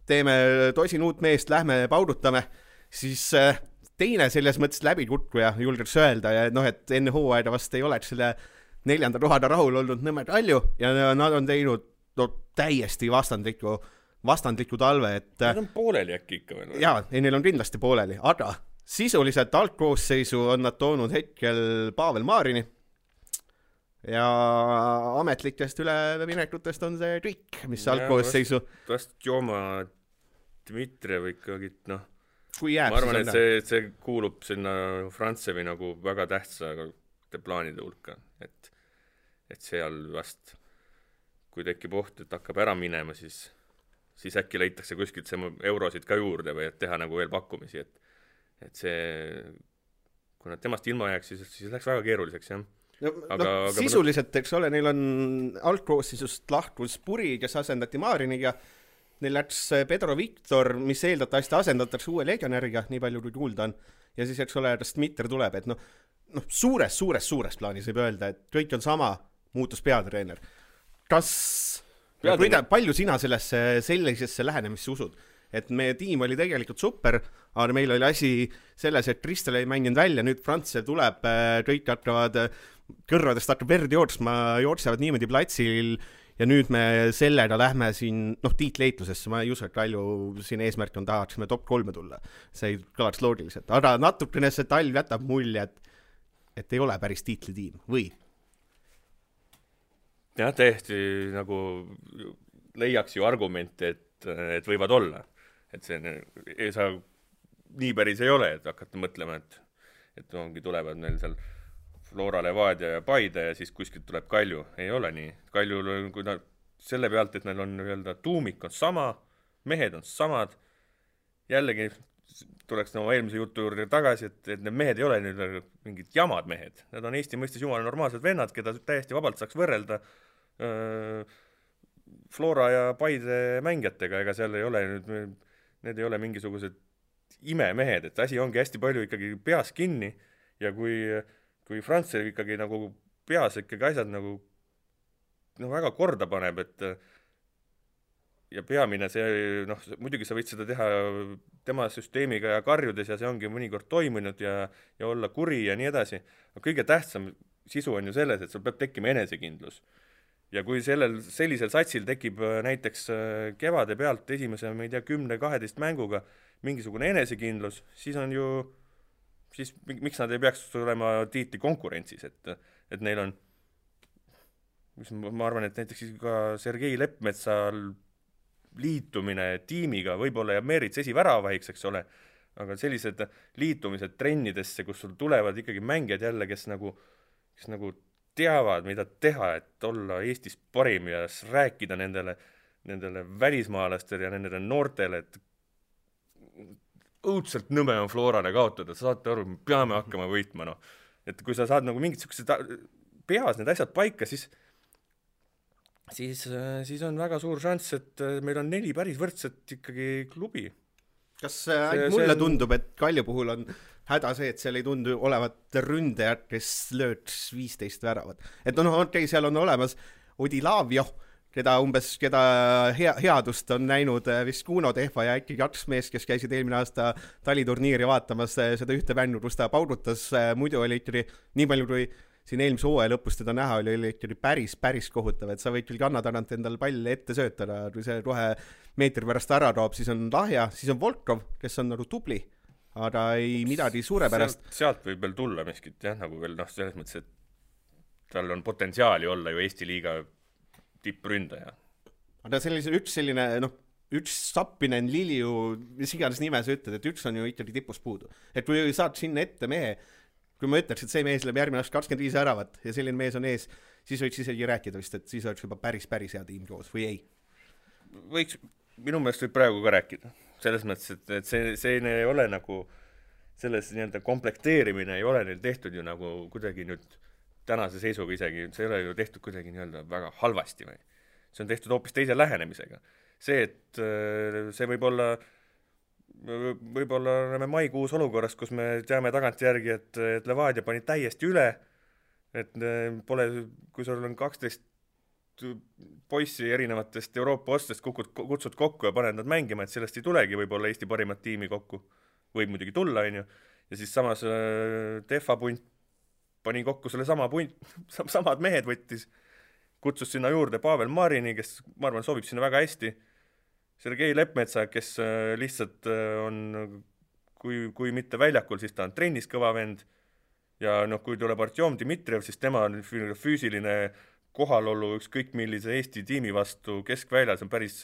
teeme tosin uut meest, lähme paudutame, siis teine selles mõttes läbikutkuja julgeks öelda ja noh, et enne hooaega vast ei oleks selle 4. kohada rahul olnud Nõmme Kalju ja nad on teinud täiesti vastandliku talve, et nad on pooleli äkki ikka veel. Jaa, neil on kindlasti pooleli, aga sisuliselt algkoosseisu on nad toonud hetkel Pavel Maarini ja ametlikest üleminekutest on see kõik, mis algkoosseisu vast Joma Dmitrijev ikkagi, noh, kui jääb, ma arvan, et see kuulub sinna Frantsevi nagu väga tähtsa plaanide hulka, et seal vast, kui tekib oht, et hakkab ära minema, siis äkki leitakse kuskilt see eurosid ka juurde või et teha nagu veel pakkumisi, et see, kui nad temast ilma jääks, siis läks väga keeruliseks, jah. Aga sisuliselt, eks ole, neil on algkoosseisust lahkus Puri, kes asendati Maariniga, neil läks Pedro Victor, mis eeldatavasti asendatakse uue legionäriga, nii palju kui kuulda on, ja siis, eks ole, Dmitri tuleb, et suures plaanis võib öelda, et kõik on sama, muutus peatreener. Palju sina sellisesse lähenemisse usud? Et meie tiim oli tegelikult super, aga meil oli asi selles, et Kristel ei mänginud välja, nüüd Frantsel tuleb, kõik hakkavad, kõrvadest hakkab verd jooksevad niimoodi platsil ja nüüd me sellega lähme siin, tiitleitlusesse, ma ei usu, et Kalju siin eesmärk on tahaksime top 3 tulla. See ei kõlaks loogiliselt, aga natukene see talv jätab mulje, et ei ole päris tiitlitiim, või? Jah, täiesti nagu leiaks ju argumente, et võivad olla. Et see ei saa, nii päris ei ole, et hakata mõtlema, et ongi tulevad meil seal Flora, Levadia ja Paide ja siis kuskilt tuleb Kalju. Ei ole nii. Kaljul, kui selle pealt, et neil on öelda, tuumik on sama, mehed on samad, jällegi tuleks oma eelmise jutu juurde tagasi, et need mehed ei ole nüüd mingid jamad mehed. Need on Eesti mõistes jumala normaalsed vennad, keda täiesti vabalt saaks võrrelda Flora ja Paide mängijatega, ega seal ei ole nüüd, need ei ole mingisugused imemehed, et asi ongi hästi palju ikkagi peas kinni ja kui Frantsel ikkagi nagu peas ikkagi asjad nagu väga korda paneb, et ja peamine see, muidugi sa võid seda teha tema süsteemiga ja karjudes ja see ongi mõnikord toimunud ja olla kuri ja nii edasi. Kõige tähtsam sisu on ju selles, et sul peab tekkima enesekindlus. Ja kui sellisel satsil tekib näiteks kevade pealt esimese, ma ei tea, 10-12 mänguga mingisugune enesekindlus, siis on ju, siis miks nad ei peaks olema tiitli konkurentsis, et neil on, ma arvan, et näiteks ka Sergei Leppmetsal liitumine tiimiga võib-olla jääb Meerits esiväravahiks, eks ole, aga sellised liitumised trennidesse, kus sul tulevad ikkagi mängijad jälle, kes nagu teavad, mida teha, et olla Eestis parim ja rääkida nendele välismaalastele ja nendele noortele, et õudselt nõme on Florale kaotada, saate aru, me peame hakkama võitma, et kui sa saad nagu mingid peas need asjad paika, siis on väga suur šanss, et meil on 4 päris võrdset ikkagi klubi. Kas mulle tundub, et Kalju puhul on häda see, et seal ei tundu olevat ründajad, kes lööks 15 väravat. Et okei, seal on olemas Odilavio, keda headust on näinud vist Kuno Tehva ja äkki 2 meest, kes käisid eelmine aasta taliturniiri vaatamas seda ühte vännu, kus ta paudutas, muidu oli ikkagi nii palju, kui siin eelmise hooaja lõpus teda näha oli ikkagi päris kohutav, et sa võid küll kanna tagant endal palli ette söötada, kui see kohe meetri pärast ära toob, siis on lahja, siis on Volkov, kes on nagu tubli, aga ei midagi suurepärast. Sealt võib veel tulla miskit, jah, nagu veel selles mõttes, et tal on potentsiaali olla ju Eesti liiga tippründaja. Aga üks Sappinen, Liliu, mis iganes nime sa ütled, et üks on ju ikkagi tipus puudu. Et kui saad sinna ette mehe, kui ma ütleks, et see mees läheb järgmine aasta 25 väravat ja selline mees on ees, siis võiks isegi rääkida vist, et siis oleks juba päris hea tiim koos või ei? Võiks, minu meelest võib praegu ka rääkida. Selles mõttes, et see ei ole nagu selles nii-öelda komplekteerimine ei ole neil tehtud ju nagu kuidagi nüüd tänase seisuga isegi, see ei ole ju tehtud kuidagi nii-öelda väga halvasti või. See on tehtud hoopis teise lähenemisega. See, et see võib-olla oleme maikuus olukorras, kus me teame tagantjärgi, et Levadia pani täiesti üle, et pole, kui sul on 12 poissi erinevatest Euroopa ostest kutsud kokku ja paned nad mängima, et sellest ei tulegi võib-olla Eesti parimat tiimi kokku. Võib muidugi tulla, on ju. Ja siis samas Tehva punt pani kokku selle samad mehed võttis, kutsus sinna juurde Pavel Marini, kes ma arvan sobib sinna väga hästi. Sergei Lepmetsa, kes lihtsalt on, kui mitte väljakul, siis ta on trennis kõva vend. Ja kui tuleb Artjom Dmitrijev, siis tema on füüsiline kohalolu ükskõik millise Eesti tiimi vastu keskväljas on päris,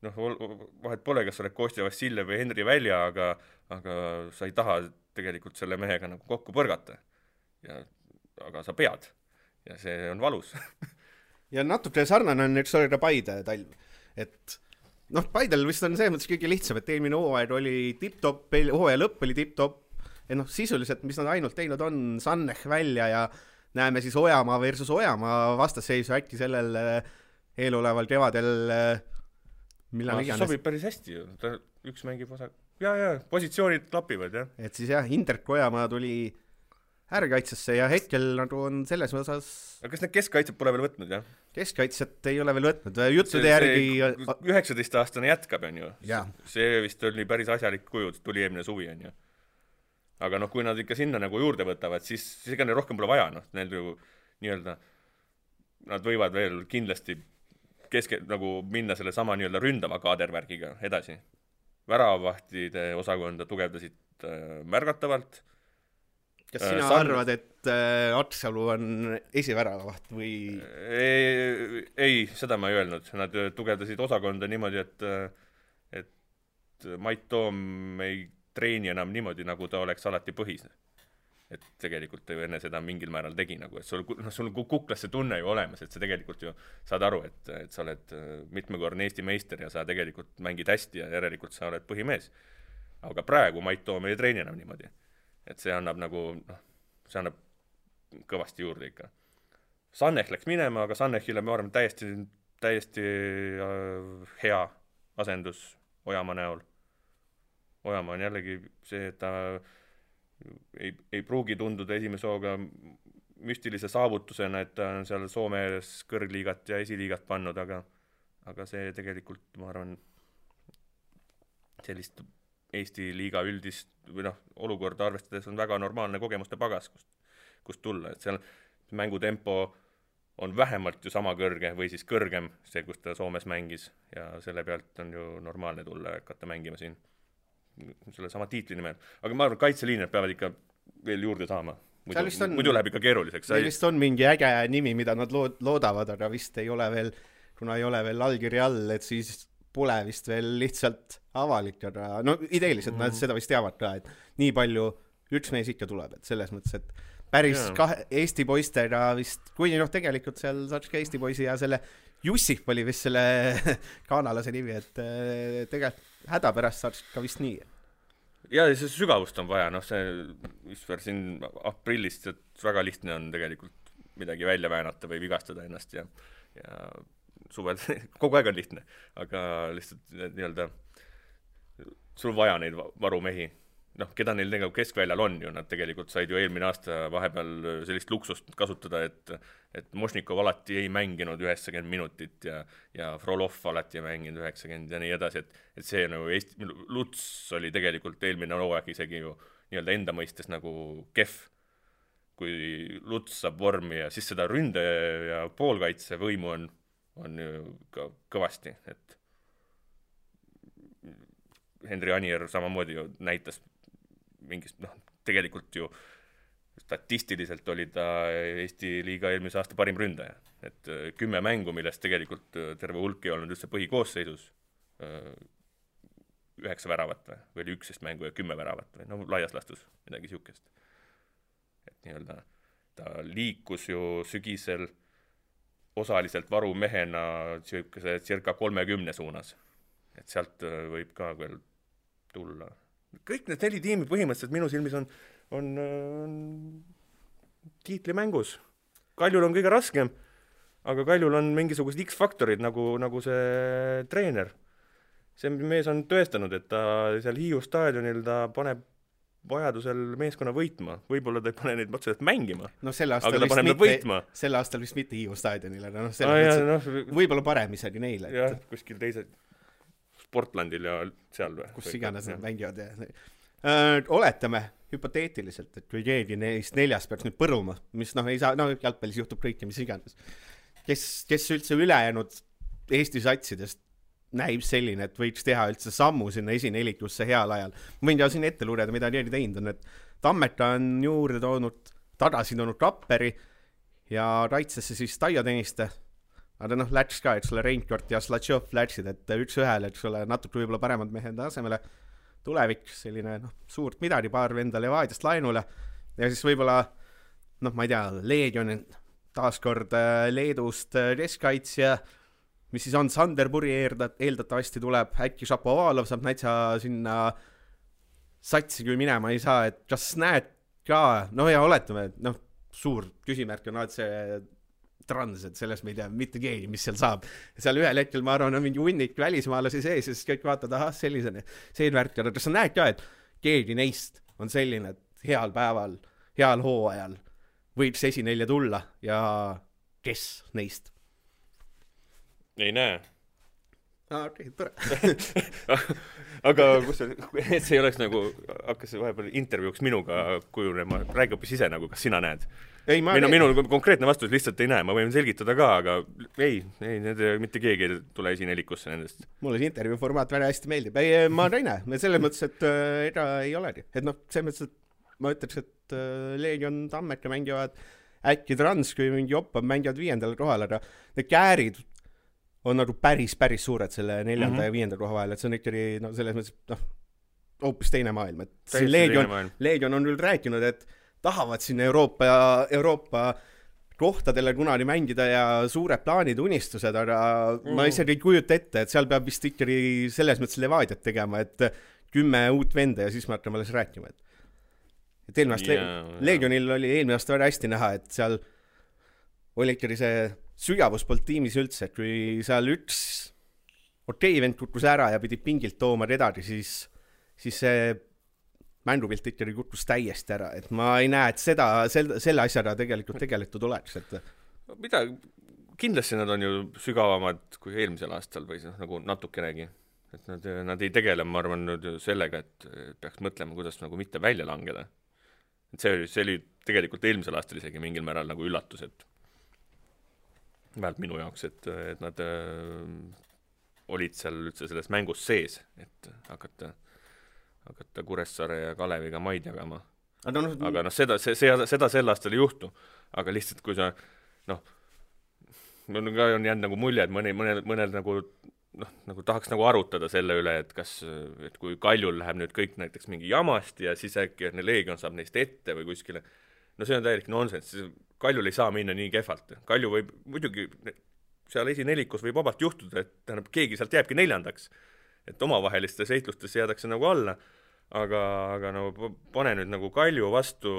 vahet pole, kas oled Kostja Vassiljev või Henri Välja, aga sa ei taha tegelikult selle mehega nagu kokku põrgata. Aga sa pead. Ja see on valus. Ja natuke sarnane on üks olida Paide talv. Et Paidel vist on see mõttes kõige lihtsam, et eelmine hooaeg oli tipp-top, hooaja lõpp oli tipp-top. Ja sisuliselt, mis nad ainult teinud on, Sannech välja ja näeme siis Ojamaa versus Ojamaa vastasseisu äkki sellel eeloleval kevadel millal iganes. Sobib päris hästi ju. Üks mängib osa. Ja, positsioonid klapivad, jah. Et siis jah, Interk Ojamaa tuli äärekaitsesse ja hetkel nagu on selles osas... Aga kas need keskkaitsed pole veel võtnud, jah? Keskkaitset ei ole veel võtnud. Juttude järgi... 19-aastane jätkab, on ju. Ja. See vist oli päris asjalik kuju, tuli eelmine suvi, on ju. Aga kui nad ikka sinna nagu juurde võtavad, siis ega neil rohkem pole vaja, neil ju nii-öelda, nad võivad veel kindlasti nagu minna selle sama nii-öelda ründava kaadervärgiga edasi. Väravavahtide osakonda tugevdasid märgatavalt. Kas sina arvad, et Atsalu on esiväravavaht või? Ei, seda ma ei öelnud. Nad tugevdasid osakonda niimoodi, et Mait Toom ei treeni enam niimoodi, nagu ta oleks alati põhis. Et tegelikult enne seda mingil määral tegi, nagu, et sul kuklas see tunne ju olemas, et sa tegelikult ju saad aru, et sa oled mitmekordne Eesti meister ja sa tegelikult mängid hästi ja järelikult sa oled põhimees. Aga praegu Mait Toom ei treeni enam niimoodi. Et see annab nagu, see annab kõvasti juurde ikka. Sannech läks minema, aga Sannechile ma arvan täiesti hea asendus Ojamaa näol. Ojamaa on jällegi see, et ta ei pruugi tunduda esimese hooga müstilise saavutusena, et ta on seal Soomes kõrgliigat ja esiliigat pannud, aga see tegelikult, ma arvan, sellist Eesti liiga üldist või olukorda arvestades on väga normaalne kogemuste pagas, kust tulla. Et seal mängutempo on vähemalt ju sama kõrge või siis kõrgem see, kus ta Soomes mängis ja selle pealt on ju normaalne tulla ja hakata mängima siin selle sama tiitli nimel. Aga ma arvan, kaitseliinid peavad ikka veel juurde saama. Muidu läheb ikka keeruliseks. Meil vist on mingi äge nimi, mida nad loodavad, aga vist ei ole veel, kuna ei ole veel allkiri all, et siis pole vist veel lihtsalt avalik, aga ideeliselt nad seda vist teavad ka, et nii palju üks mees ikka tuleb, et selles mõttes, et päris Eesti poistega vist, kui tegelikult seal saaks ka Eesti poisi ja selle Jussif oli vist selle kanalase nimi, et tegelikult häda pärast saaks ka vist nii. Ja see sügavust on vaja, see siin aprillist, et väga lihtne on tegelikult midagi välja väänata või vigastada ennast ja suvel kogu aeg on lihtne, aga lihtsalt nii-öelda sul vaja neid varumehi. Keda neil tegelikult keskväljal on ju, nad tegelikult said ju eelmine aasta vahepeal sellist luksust kasutada, et Mošnikov alati ei mänginud 90 minutit ja Frolov alati ei mänginud 90 ja nii edasi, et see Luts oli tegelikult eelmine hooaeg isegi ju nii-öelda enda mõistes nagu kehv, kui Luts saab vormi ja siis seda ründe ja poolkaitse võimu on ju ka kõvasti, et Henri Anier samamoodi ju näitas mingist, tegelikult ju statistiliselt oli ta Eesti liiga eelmise aasta parim ründaja, et 10 mängu, millest tegelikult terve hulk ei olnud üldse põhikoosseisus 9 väravat või oli 11 mängu ja 10 väravat või laias lastus midagi siukest. et nii-öelda ta liikus ju sügisel osaliselt varumehena siukese circa 30 suunas. Et sealt võib ka veel tulla. Kõik need 4 tiimi põhimõtteliselt minu silmis on tiitlimängus. Kaljul on kõige raskem, aga Kaljul on mingisugused X-faktorid nagu see treener. See mees on tõestanud, et ta seal Hiiu staadionil ta paneb vajadusel meeskonna võitma. Võib-olla ta ei pane neid otseselt mängima, no, aga ta paneb võitma. Sel aastal vist mitte Hiiu staadionil, aga võib-olla parem isegi neile. Jah, kuskil teise Sportlandil ja seal või? Kus iganes nad mängivad. Oletame hüpoteetiliselt, et kui keegi neist 4 peaks nüüd põruma, mis ei saa, jalgpallis juhtub kõike, mis iganes. Kes üldse ülejäänud Eesti satsidest näib selline, et võiks teha üldse sammu sinna esinelikusse heal ajal. Ma võin ja siin ette lugeda, mida Jeedi teinud on, et Tammeta on juurde tagasi toonud Kapperi ja kaitsesse siis Taio Tõniste. Aga läks ka, et sulle Reinkort ja Slatšov läksid, et 1-1, et sulle natuke võib-olla paremad mehed asemele tulevik, selline suurt midagi, paar venda Levadiast laenule ja siis võib-olla, ma ei tea, Leegion taaskord Leedust keskkaitsja, mis siis on Sanderpuri eeldatavasti tuleb, äkki Šapovalov saab näitsa sinna satsi kui minema ei saa, et kas näed ka, ja oletame, et suur küsimärk on see trans, et selles me ei tea mitte keegi, mis seal saab. Seal ühel hetkel, ma arvan, on mingi hunnik välismaalasi sees ja siis kõik vaatad, sellisene värk. Aga kas sa näed ka, et keegi neist on selline, et heal päeval, heal hooajal võiks esinelja tulla ja kes neist? Ei näe. Okei, tore. Aga et see ei oleks hakkas vahepeal intervjuuks minuga kujunema, räägi hoopis ise kas sina näed? Minu konkreetne vastus lihtsalt ei näe, ma võin selgitada ka, aga ei, mitte keegi ei tule esinelikusse nendest. Mulle see intervjuu formaat väga hästi meeldib. Ma ei näe, selles mõttes, et ega ei olegi. Et selles mõttes, et ma ütleks, et Leegion Tammeka mängivad äkki Trans, kui mingi Oppa mängivad 5. kohal, aga need käärid on päris suured selle 4. ja 5. koha vahel, et see on ikkagi selles mõttes, hoopis teine maailm. Et Leegion on küll rääkinud, et tahavad sinna Euroopa kohtadele kunagi mängida ja suured plaanid, unistused, aga ma isegi ei kujuta ette, et seal peab vist ikkagi selles mõttes Levadiat tegema, et 10 uut venda ja siis me hakkame alles rääkima. Et Leegionil oli eelmine aasta väga hästi näha, et seal oli ikkagi see sügavus polnud tiimis üldse, et kui seal üks vend kukkus ära ja pidi pingilt tooma redagi, siis see mängupilt ikkagi kukkus täiesti ära, et ma ei näe, et selle asjaga tegelikult tegeletud oleks, et mida, kindlasti nad on ju sügavamad kui eelmisel aastal või natukenegi, et nad ei tegele, ma arvan, sellega, et peaks mõtlema, kuidas mitte välja langeda. Et see oli tegelikult eelmisel aastal isegi mingil määral üllatus, et vähemalt minu jaoks, et nad olid seal üldse selles mängus sees, et hakata Kuressaare ja Kaleviga maid jagama. Aga seda sel aastal ei juhtu. Aga lihtsalt, kui sa, mul ka on jäänud mulje, et mõnel tahaks arutada selle üle, et kui Kaljul läheb nüüd kõik näiteks mingi jamast ja siis äkki Leegion saab neist ette või kuskile. See on täielik nonsense. Kaljul ei saa minna nii kehvalt. Kalju võib, muidugi seal esinelikus võib vabalt juhtuda, et keegi sealt jääbki 4. et omavahelistes seitlustes jäädakse alla, aga pane nüüd Kalju vastu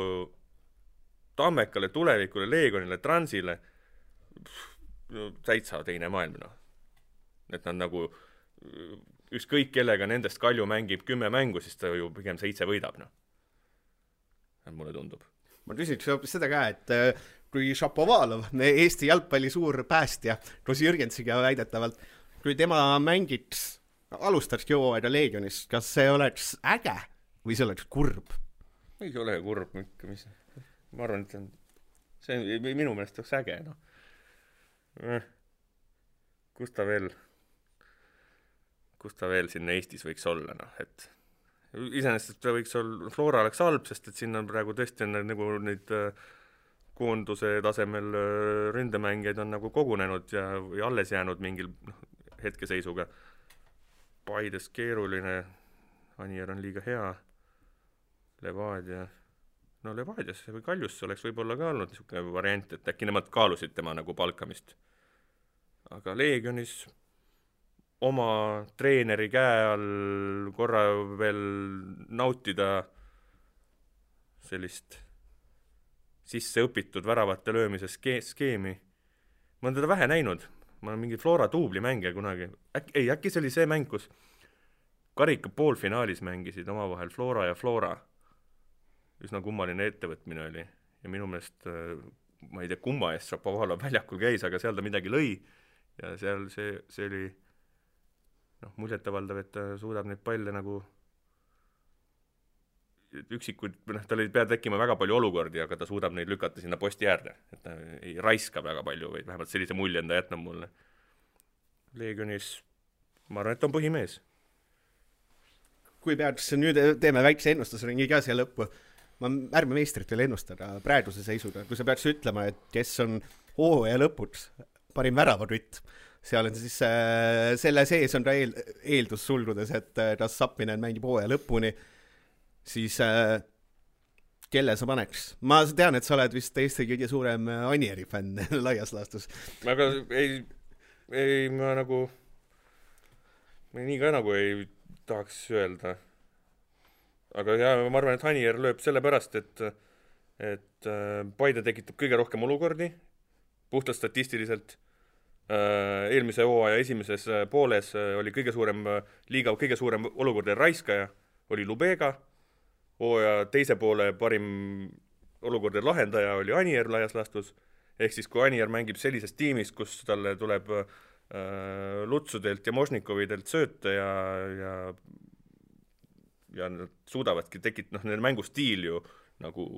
Tammekale, Tulevikule, Leegonile, Transile, täitsa teine maailm. Et nad ükskõik kellega nendest Kalju mängib 10 mängu, siis ta ju pigem 7 võidab. Mulle tundub. Ma küsiks seda ka, et kui Šapovalov, Eesti jalgpalli suur päästja, koos Jürgensiga väidetavalt, kui tema mängiks alustaks hooaega Leegionis, kas see oleks äge või see oleks kurb? Ei ole kurb, ma arvan, et see minu meelest oleks äge. Kus ta veel siin Eestis võiks olla? Et iseenesest ta võiks olla, Flora oleks halb, sest et siin on praegu tõesti neid koonduse tasemel ründemängijaid on kogunenud ja alles jäänud mingil hetkeseisuga. Paides keeruline, Anier on liiga hea, Levadia, no Levadiasse või Kaljusse oleks võib-olla ka olnud niisugune variant, et äkki nemad kaalusid tema nagu palkamist. Aga Leegionis oma treeneri käe all korra veel nautida sellist sisse õpitud väravate löömise skeemi. Ma olen teda vähe näinud. Ma olen mingi Flora duubli mängija kunagi. Äkki see oli see mäng, kus karika poolfinaalis mängisid omavahel Flora ja Flora. Üsna kummaline ettevõtmine oli. Ja minu meelest, ma ei tea, kumma eest Šapovalov väljakul käis, aga seal ta midagi lõi. Ja seal see oli muljetavaldav, et ta suudab neid palle nagu üksikuid, tal ei pea tekkima väga palju olukordi, aga ta suudab neid lükata sinna posti äärde, et ta ei raiska väga palju või vähemalt sellise mulje enda jätnab mulle. Leegionis, ma arvan, et ta on põhimees. Kui peaks, nüüd teeme väikse ennustusringi ka siia lõppu, ma ärme meistrit veel ennustada praeguse seisuga, kui sa peaks ütlema, et kes on hooaja lõpuks parim väravadütt, seal on siis selle sees on ta eeldus sulgudes, et ta Sappinen mängib hooaja lõpuni, siis kelle sa paneks? Ma tean, et sa oled vist Eesti kõige suurem Anieri fänn laias laastus. Aga ei ma nagu nii ka nagu ei tahaks öelda. Aga ma arvan, et Anier lööb selle pärast, et Paide tekitab kõige rohkem olukordi, puhtalt statistiliselt. Eelmise hooaja esimeses pooles oli liiga kõige suurem olukordade raiskaja, oli Lubega, hooaja teise poole parim olukordade lahendaja oli Anier laias laastus, ehk siis kui Anier mängib sellises tiimis, kus talle tuleb Lutsudelt ja Možnikovidelt sööte ja nad suudavadki nende mängustiil ju nagu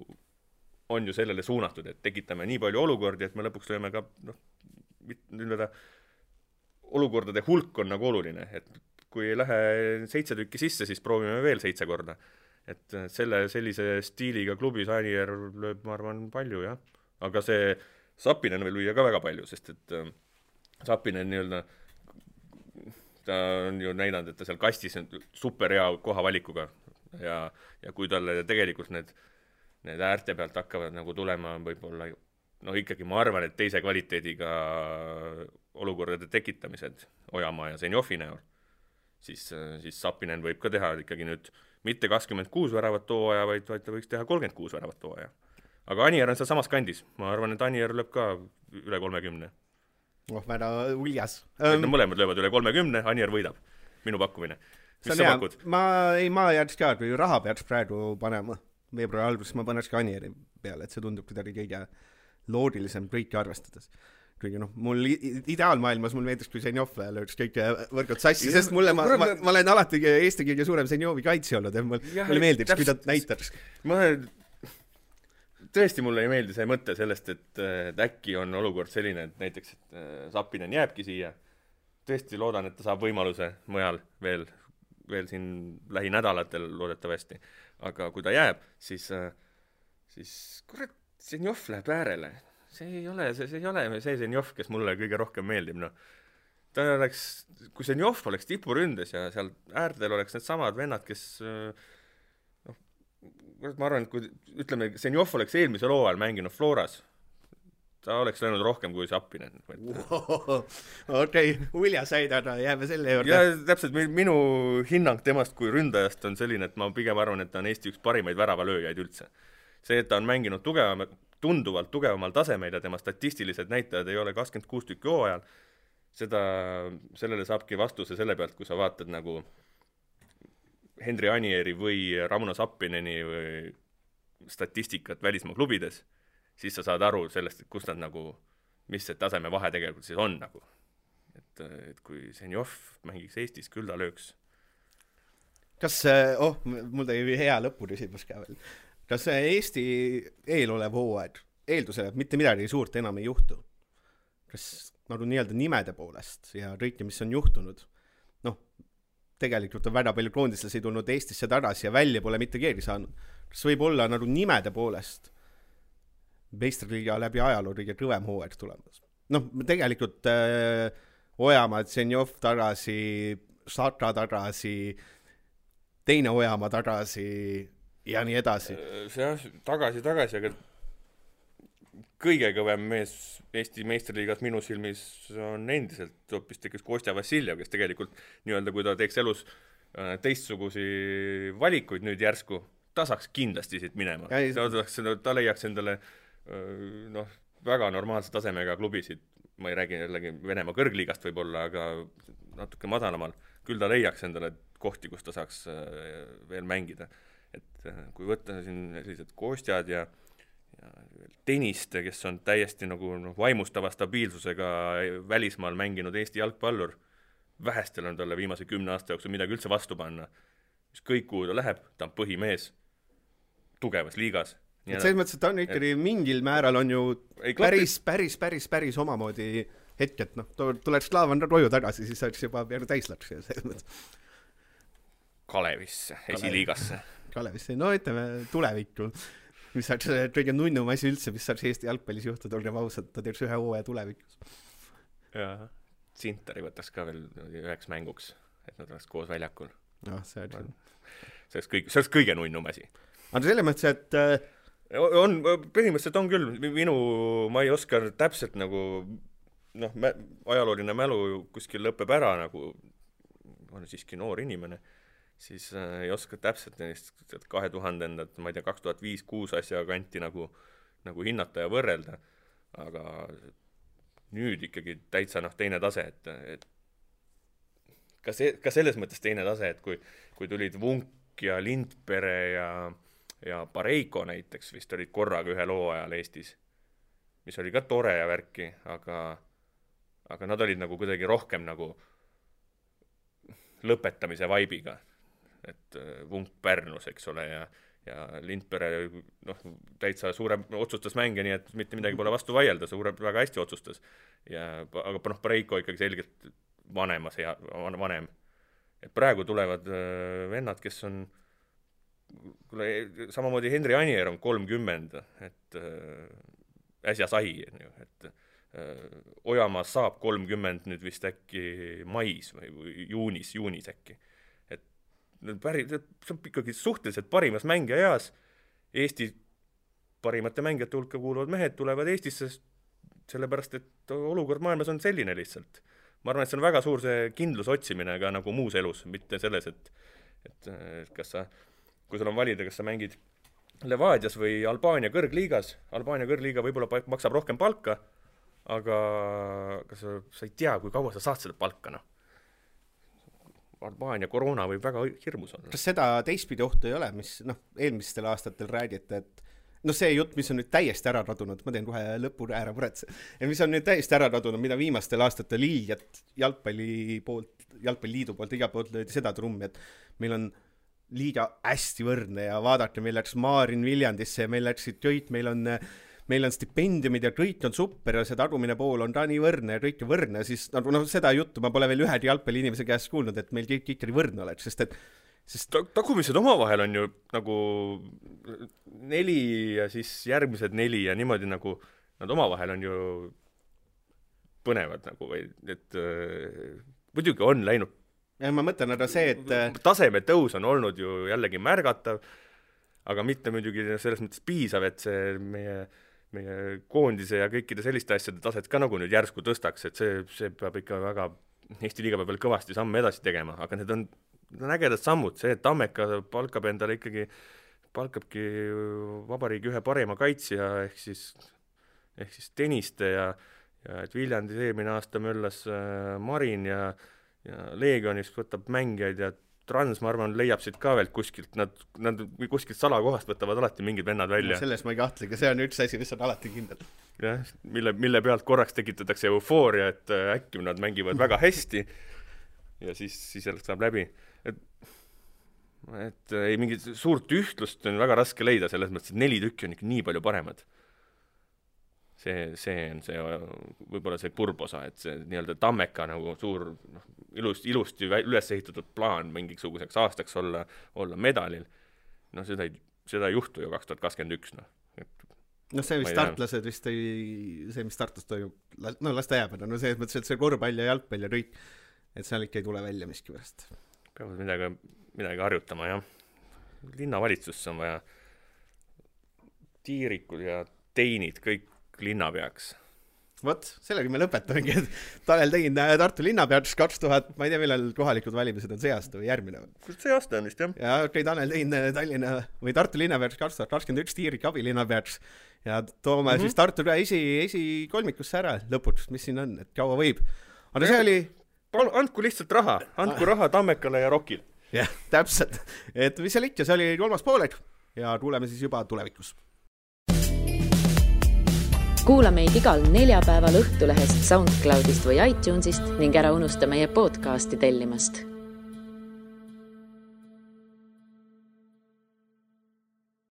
on ju sellele suunatud, et tekitame nii palju olukordi, et me lõpuks lööme ka olukordade hulk on nagu oluline, et kui ei lähe 7 tükki sisse, siis proovime veel 7 korda. Et sellise stiiliga klubis Anier lööb, ma arvan, palju, jah. Aga see Sappinen veel lüüa ka väga palju, sest et Sappinen ta on ju näidanud, et ta seal kastis on super hea kohavalikuga ja kui talle tegelikult need äärte pealt hakkavad nagu tulema võib-olla ikkagi ma arvan, et teise kvaliteediga olukordade tekitamised Ojamaa ja Zenjovi näol, siis Sappinen võib ka teha ikkagi nüüd mitte 26 väravat hooaja, vaid ta võiks teha 36 väravat hooaja. Aga Anier on seal samas kandis. Ma arvan, et Anier lööb ka üle 30. Väga uljas. Mõlemad löövad üle 30, Anier võidab. Minu pakkumine. Mis sa pakud? Ma jääks ka, kui raha peaks praegu panema veebruari alguses, ma paneks ka Anieri peale, et see tundub kuidagi kõige loodilisem kõiki arvestades. Kuigi mul ideaalmaailmas mul meeldis, kui Zenjov lööks kõik võrgud sassi, sest ma olen alati Eesti kõige suurem Zenjovi kaitsi olnud, et mulle meeldiks, kui ta näitaks. Tõesti mulle ei meeldi see mõte sellest, et äkki on olukord selline, et näiteks et Sappinen jääbki siia. Tõesti loodan, et ta saab võimaluse mujal veel siin lähinädalatel loodetavasti. Aga kui ta jääb, siis kurat, Zenjov läheb äärele. See ei ole see Zenjov, kes mulle kõige rohkem meeldib. Ta oleks, kui Zenjov oleks tipuründes ja seal äärtel oleks need samad vennad, kes ma arvan, et kui ütleme, Zenjov oleks eelmisel hooajal mänginud Floras, ta oleks läinud rohkem kui Sappinen. Okei, uljas aidada, jääme selle juurde. Ja täpselt minu hinnang temast kui ründajast on selline, et ma pigem arvan, et ta on Eesti üks parimaid väravalööjaid üldse. See, et ta on mänginud tunduvalt tugevamal tasemeil ja tema statistilised näitajad ei ole 26 tükki hooajal, sellele saabki vastuse selle pealt, kui sa vaatad nagu Henri Anieri või Rauno Sappineni või statistikat välismaa klubides, siis sa saad aru sellest, et kus nad nagu, mis see taseme vahe tegelikult siis on nagu. Et kui Zenjov mängiks Eestis, küll ta lööks. Kas, mul tõi hea lõpuküsimus ka veel. Kas Eesti eelolev hooaeg eeldusel, et mitte midagi suurt enam ei juhtu? Kas nagu nii-öelda nimede poolest ja kõike, mis on juhtunud? Tegelikult on väga palju koondislasi tulnud Eestisse tagasi ja välja pole mitte keegi saanud. Kas võib olla nagu nimede poolest meistriliiga läbi ajaloo kõige kõvem hooaeg tulemas? Tegelikult Ojamaa, Zenjov tagasi, Saka tagasi, teine Ojamaa tagasi, ja nii edasi. See tagasi, aga kõige kõvem mees Eesti meistriliigas minu silmis on endiselt hoopis Kostja Vassiljev, kes tegelikult nii-öelda, kui ta teeks elus teistsugusi valikuid nüüd järsku, ta saaks kindlasti siit minema. Ta leiaks endale väga normaalse tasemega klubisid, ma ei räägi jällegi Venemaa kõrgliigast võib-olla, aga natuke madalamal, küll ta leiaks endale kohti, kus ta saaks veel mängida. Et kui võtta siin sellised Kostjad ja Teniste, kes on täiesti nagu vaimustava stabiilsusega välismaal mänginud Eesti jalgpallur, vähestel on talle viimase 10 aasta jooksul midagi üldse vastu panna. Mis kõik, kuhu ta läheb, ta on põhimees tugevas liigas. Selles mõttes, et ta on ikkagi mingil määral on ju päris omamoodi hetk, et tuleks Slaavan Roju tagasi, siis oleks juba täislaks. Kalevisse, esiliigasse. Kalevisse, no ütleme tulevikku. Mis saaks kõige nunnum asi üldse, mis saaks Eesti jalgpallis juhtuda, olgem ausad, ta teeks ühe hooaja tulevikus. Ja Sintari võtaks ka veel üheks mänguks, et nad oleks koos väljakul. No, see oleks kõige nunnum asi. Aga selles mõttes, et põhimõtteliselt on küll, ma ei oska täpselt nagu ajalooline mälu kuskil lõpeb ära, nagu on siiski noor inimene, siis ei oska täpselt neist 2000-ndat, ma ei tea, 2005-2006 asja kanti nagu hinnata ja võrrelda, aga nüüd ikkagi täitsa teine tase, et ka selles mõttes teine tase, et kui tulid Vunk ja Lindpere ja Pareiko näiteks, vist olid korraga ühe loo ajal Eestis, mis oli ka tore ja värki, aga nad olid nagu kuidagi rohkem nagu lõpetamise vaibiga. Et Vunk Pärnus, eks ole, ja Lindpere täitsa otsustas mänge, nii et mitte midagi pole vastu vaielda, väga hästi otsustas. Aga Pareiko ikkagi selgelt vanem. Et praegu tulevad vennad, kes on samamoodi Henri Anier on 30, et äsja sai, et Ojamaa saab 30 nüüd vist äkki mais või juunis äkki. See on ikkagi suhteliselt parimas mängija eas. Eesti parimate mängijate hulka kuuluvad mehed tulevad Eestisse sellepärast, et olukord maailmas on selline lihtsalt. Ma arvan, et see on väga suur see kindlus otsimine ka nagu muus elus, mitte selles, et kui sul on valida, kas sa mängid Levadias või Albaania kõrgliigas, Albaania kõrgliiga võib-olla maksab rohkem palka, aga sa ei tea, kui kaua sa saad seda palka, Albaania koroona võib väga hirmus olla. Kas seda teistpidi ohtu ei ole, mis eelmistel aastatel räägite, et see jutt, mis on nüüd täiesti ära radunud, ma teen kohe lõpu ära puretse, mis on nüüd täiesti ära radunud, mida viimastel aastatel jalgpalliliidu poolt iga poolt löödi seda trummi, et meil on liiga hästi võrdne ja vaadake, meil läks Maarin Viljandisse ja meil läksid kõik, meil on stipendiumid ja kõik on super ja see tagumine pool on ka nii võrdne ja kõik on võrdne, siis seda juttu ma pole veel ühegi jalgpalli inimese käest kuulnud, et meil kõik ikkagi võrdne oleks, sest tagumised omavahel on ju nagu 4 ja siis järgmised 4 ja niimoodi nagu nad omavahel on ju põnevad nagu, et muidugi on läinud. Ja ma mõtlen, aga see, et taseme tõus on olnud ju jällegi märgatav, aga mitte muidugi selles mõttes piisav, et see meie koondise ja kõikide selliste asjade taset ka nagu nüüd järsku tõstaks, et see peab ikka väga, Eesti liiga peab veel kõvasti samme edasi tegema, aga need on ägedad sammud, see, et Tammeka palkabki vabariigi ühe parema kaitsja ehk siis Teniste ja et Viljandis eelmine aasta möllas Marin ja Leegionis võtab mängijaid ja Trans, ma arvan, leiab siit ka veel kuskilt, nad kuskilt salakohast võtavad alati mingid vennad välja. Selles ma ei kahtlegi, see on üks asi, mis on alati kindel. Jah, mille pealt korraks tekitatakse eufooria, et äkki nad mängivad väga hästi ja siis saab läbi. Et ei mingit suurt ühtlust on väga raske leida, selles mõttes, et 4 tükki on ikka nii palju paremad. See on see võib-olla see kurbosa, et see nii-öelda Tammeka nagu suur ilusti üles ehitatud plaan mingisuguseks aastaks olla medalil. Seda ei juhtu ju 2021. See vist startlased vist see, mis Tartus toimub, las ta jääb, selles mõttes, et see korvpall ja jalgpall ja kõik, et seal ikka ei tule välja miskipärast. Peavad midagi harjutama, jah. linnavalitsusse on vaja tiirikud ja teinid kõik linnapeaks. Vot, sellega me lõpetamegi, et Tanel Tein Tartu linnapeaks 2000, ma ei tea, millal kohalikud valimised on see aasta või järgmine. Kus see aasta on vist, jah? Ja Tanel Tein Tallinna või Tartu linnapeaks 2021 tiirik abilinnapeaks ja toome siis Tartu esikolmikusse ära lõpuks, mis siin on, et kaua võib. Aga see oli... Andku lihtsalt raha, andku raha Tammekale ja Rokil. Jah, täpselt. Et mis seal ikka, see oli 3. poolek ja kuuleme siis juba tulevikus. Kuula meid igal neljapäeval Õhtulehest, SoundCloudist või iTunesist ning ära unusta meie podcasti tellimast.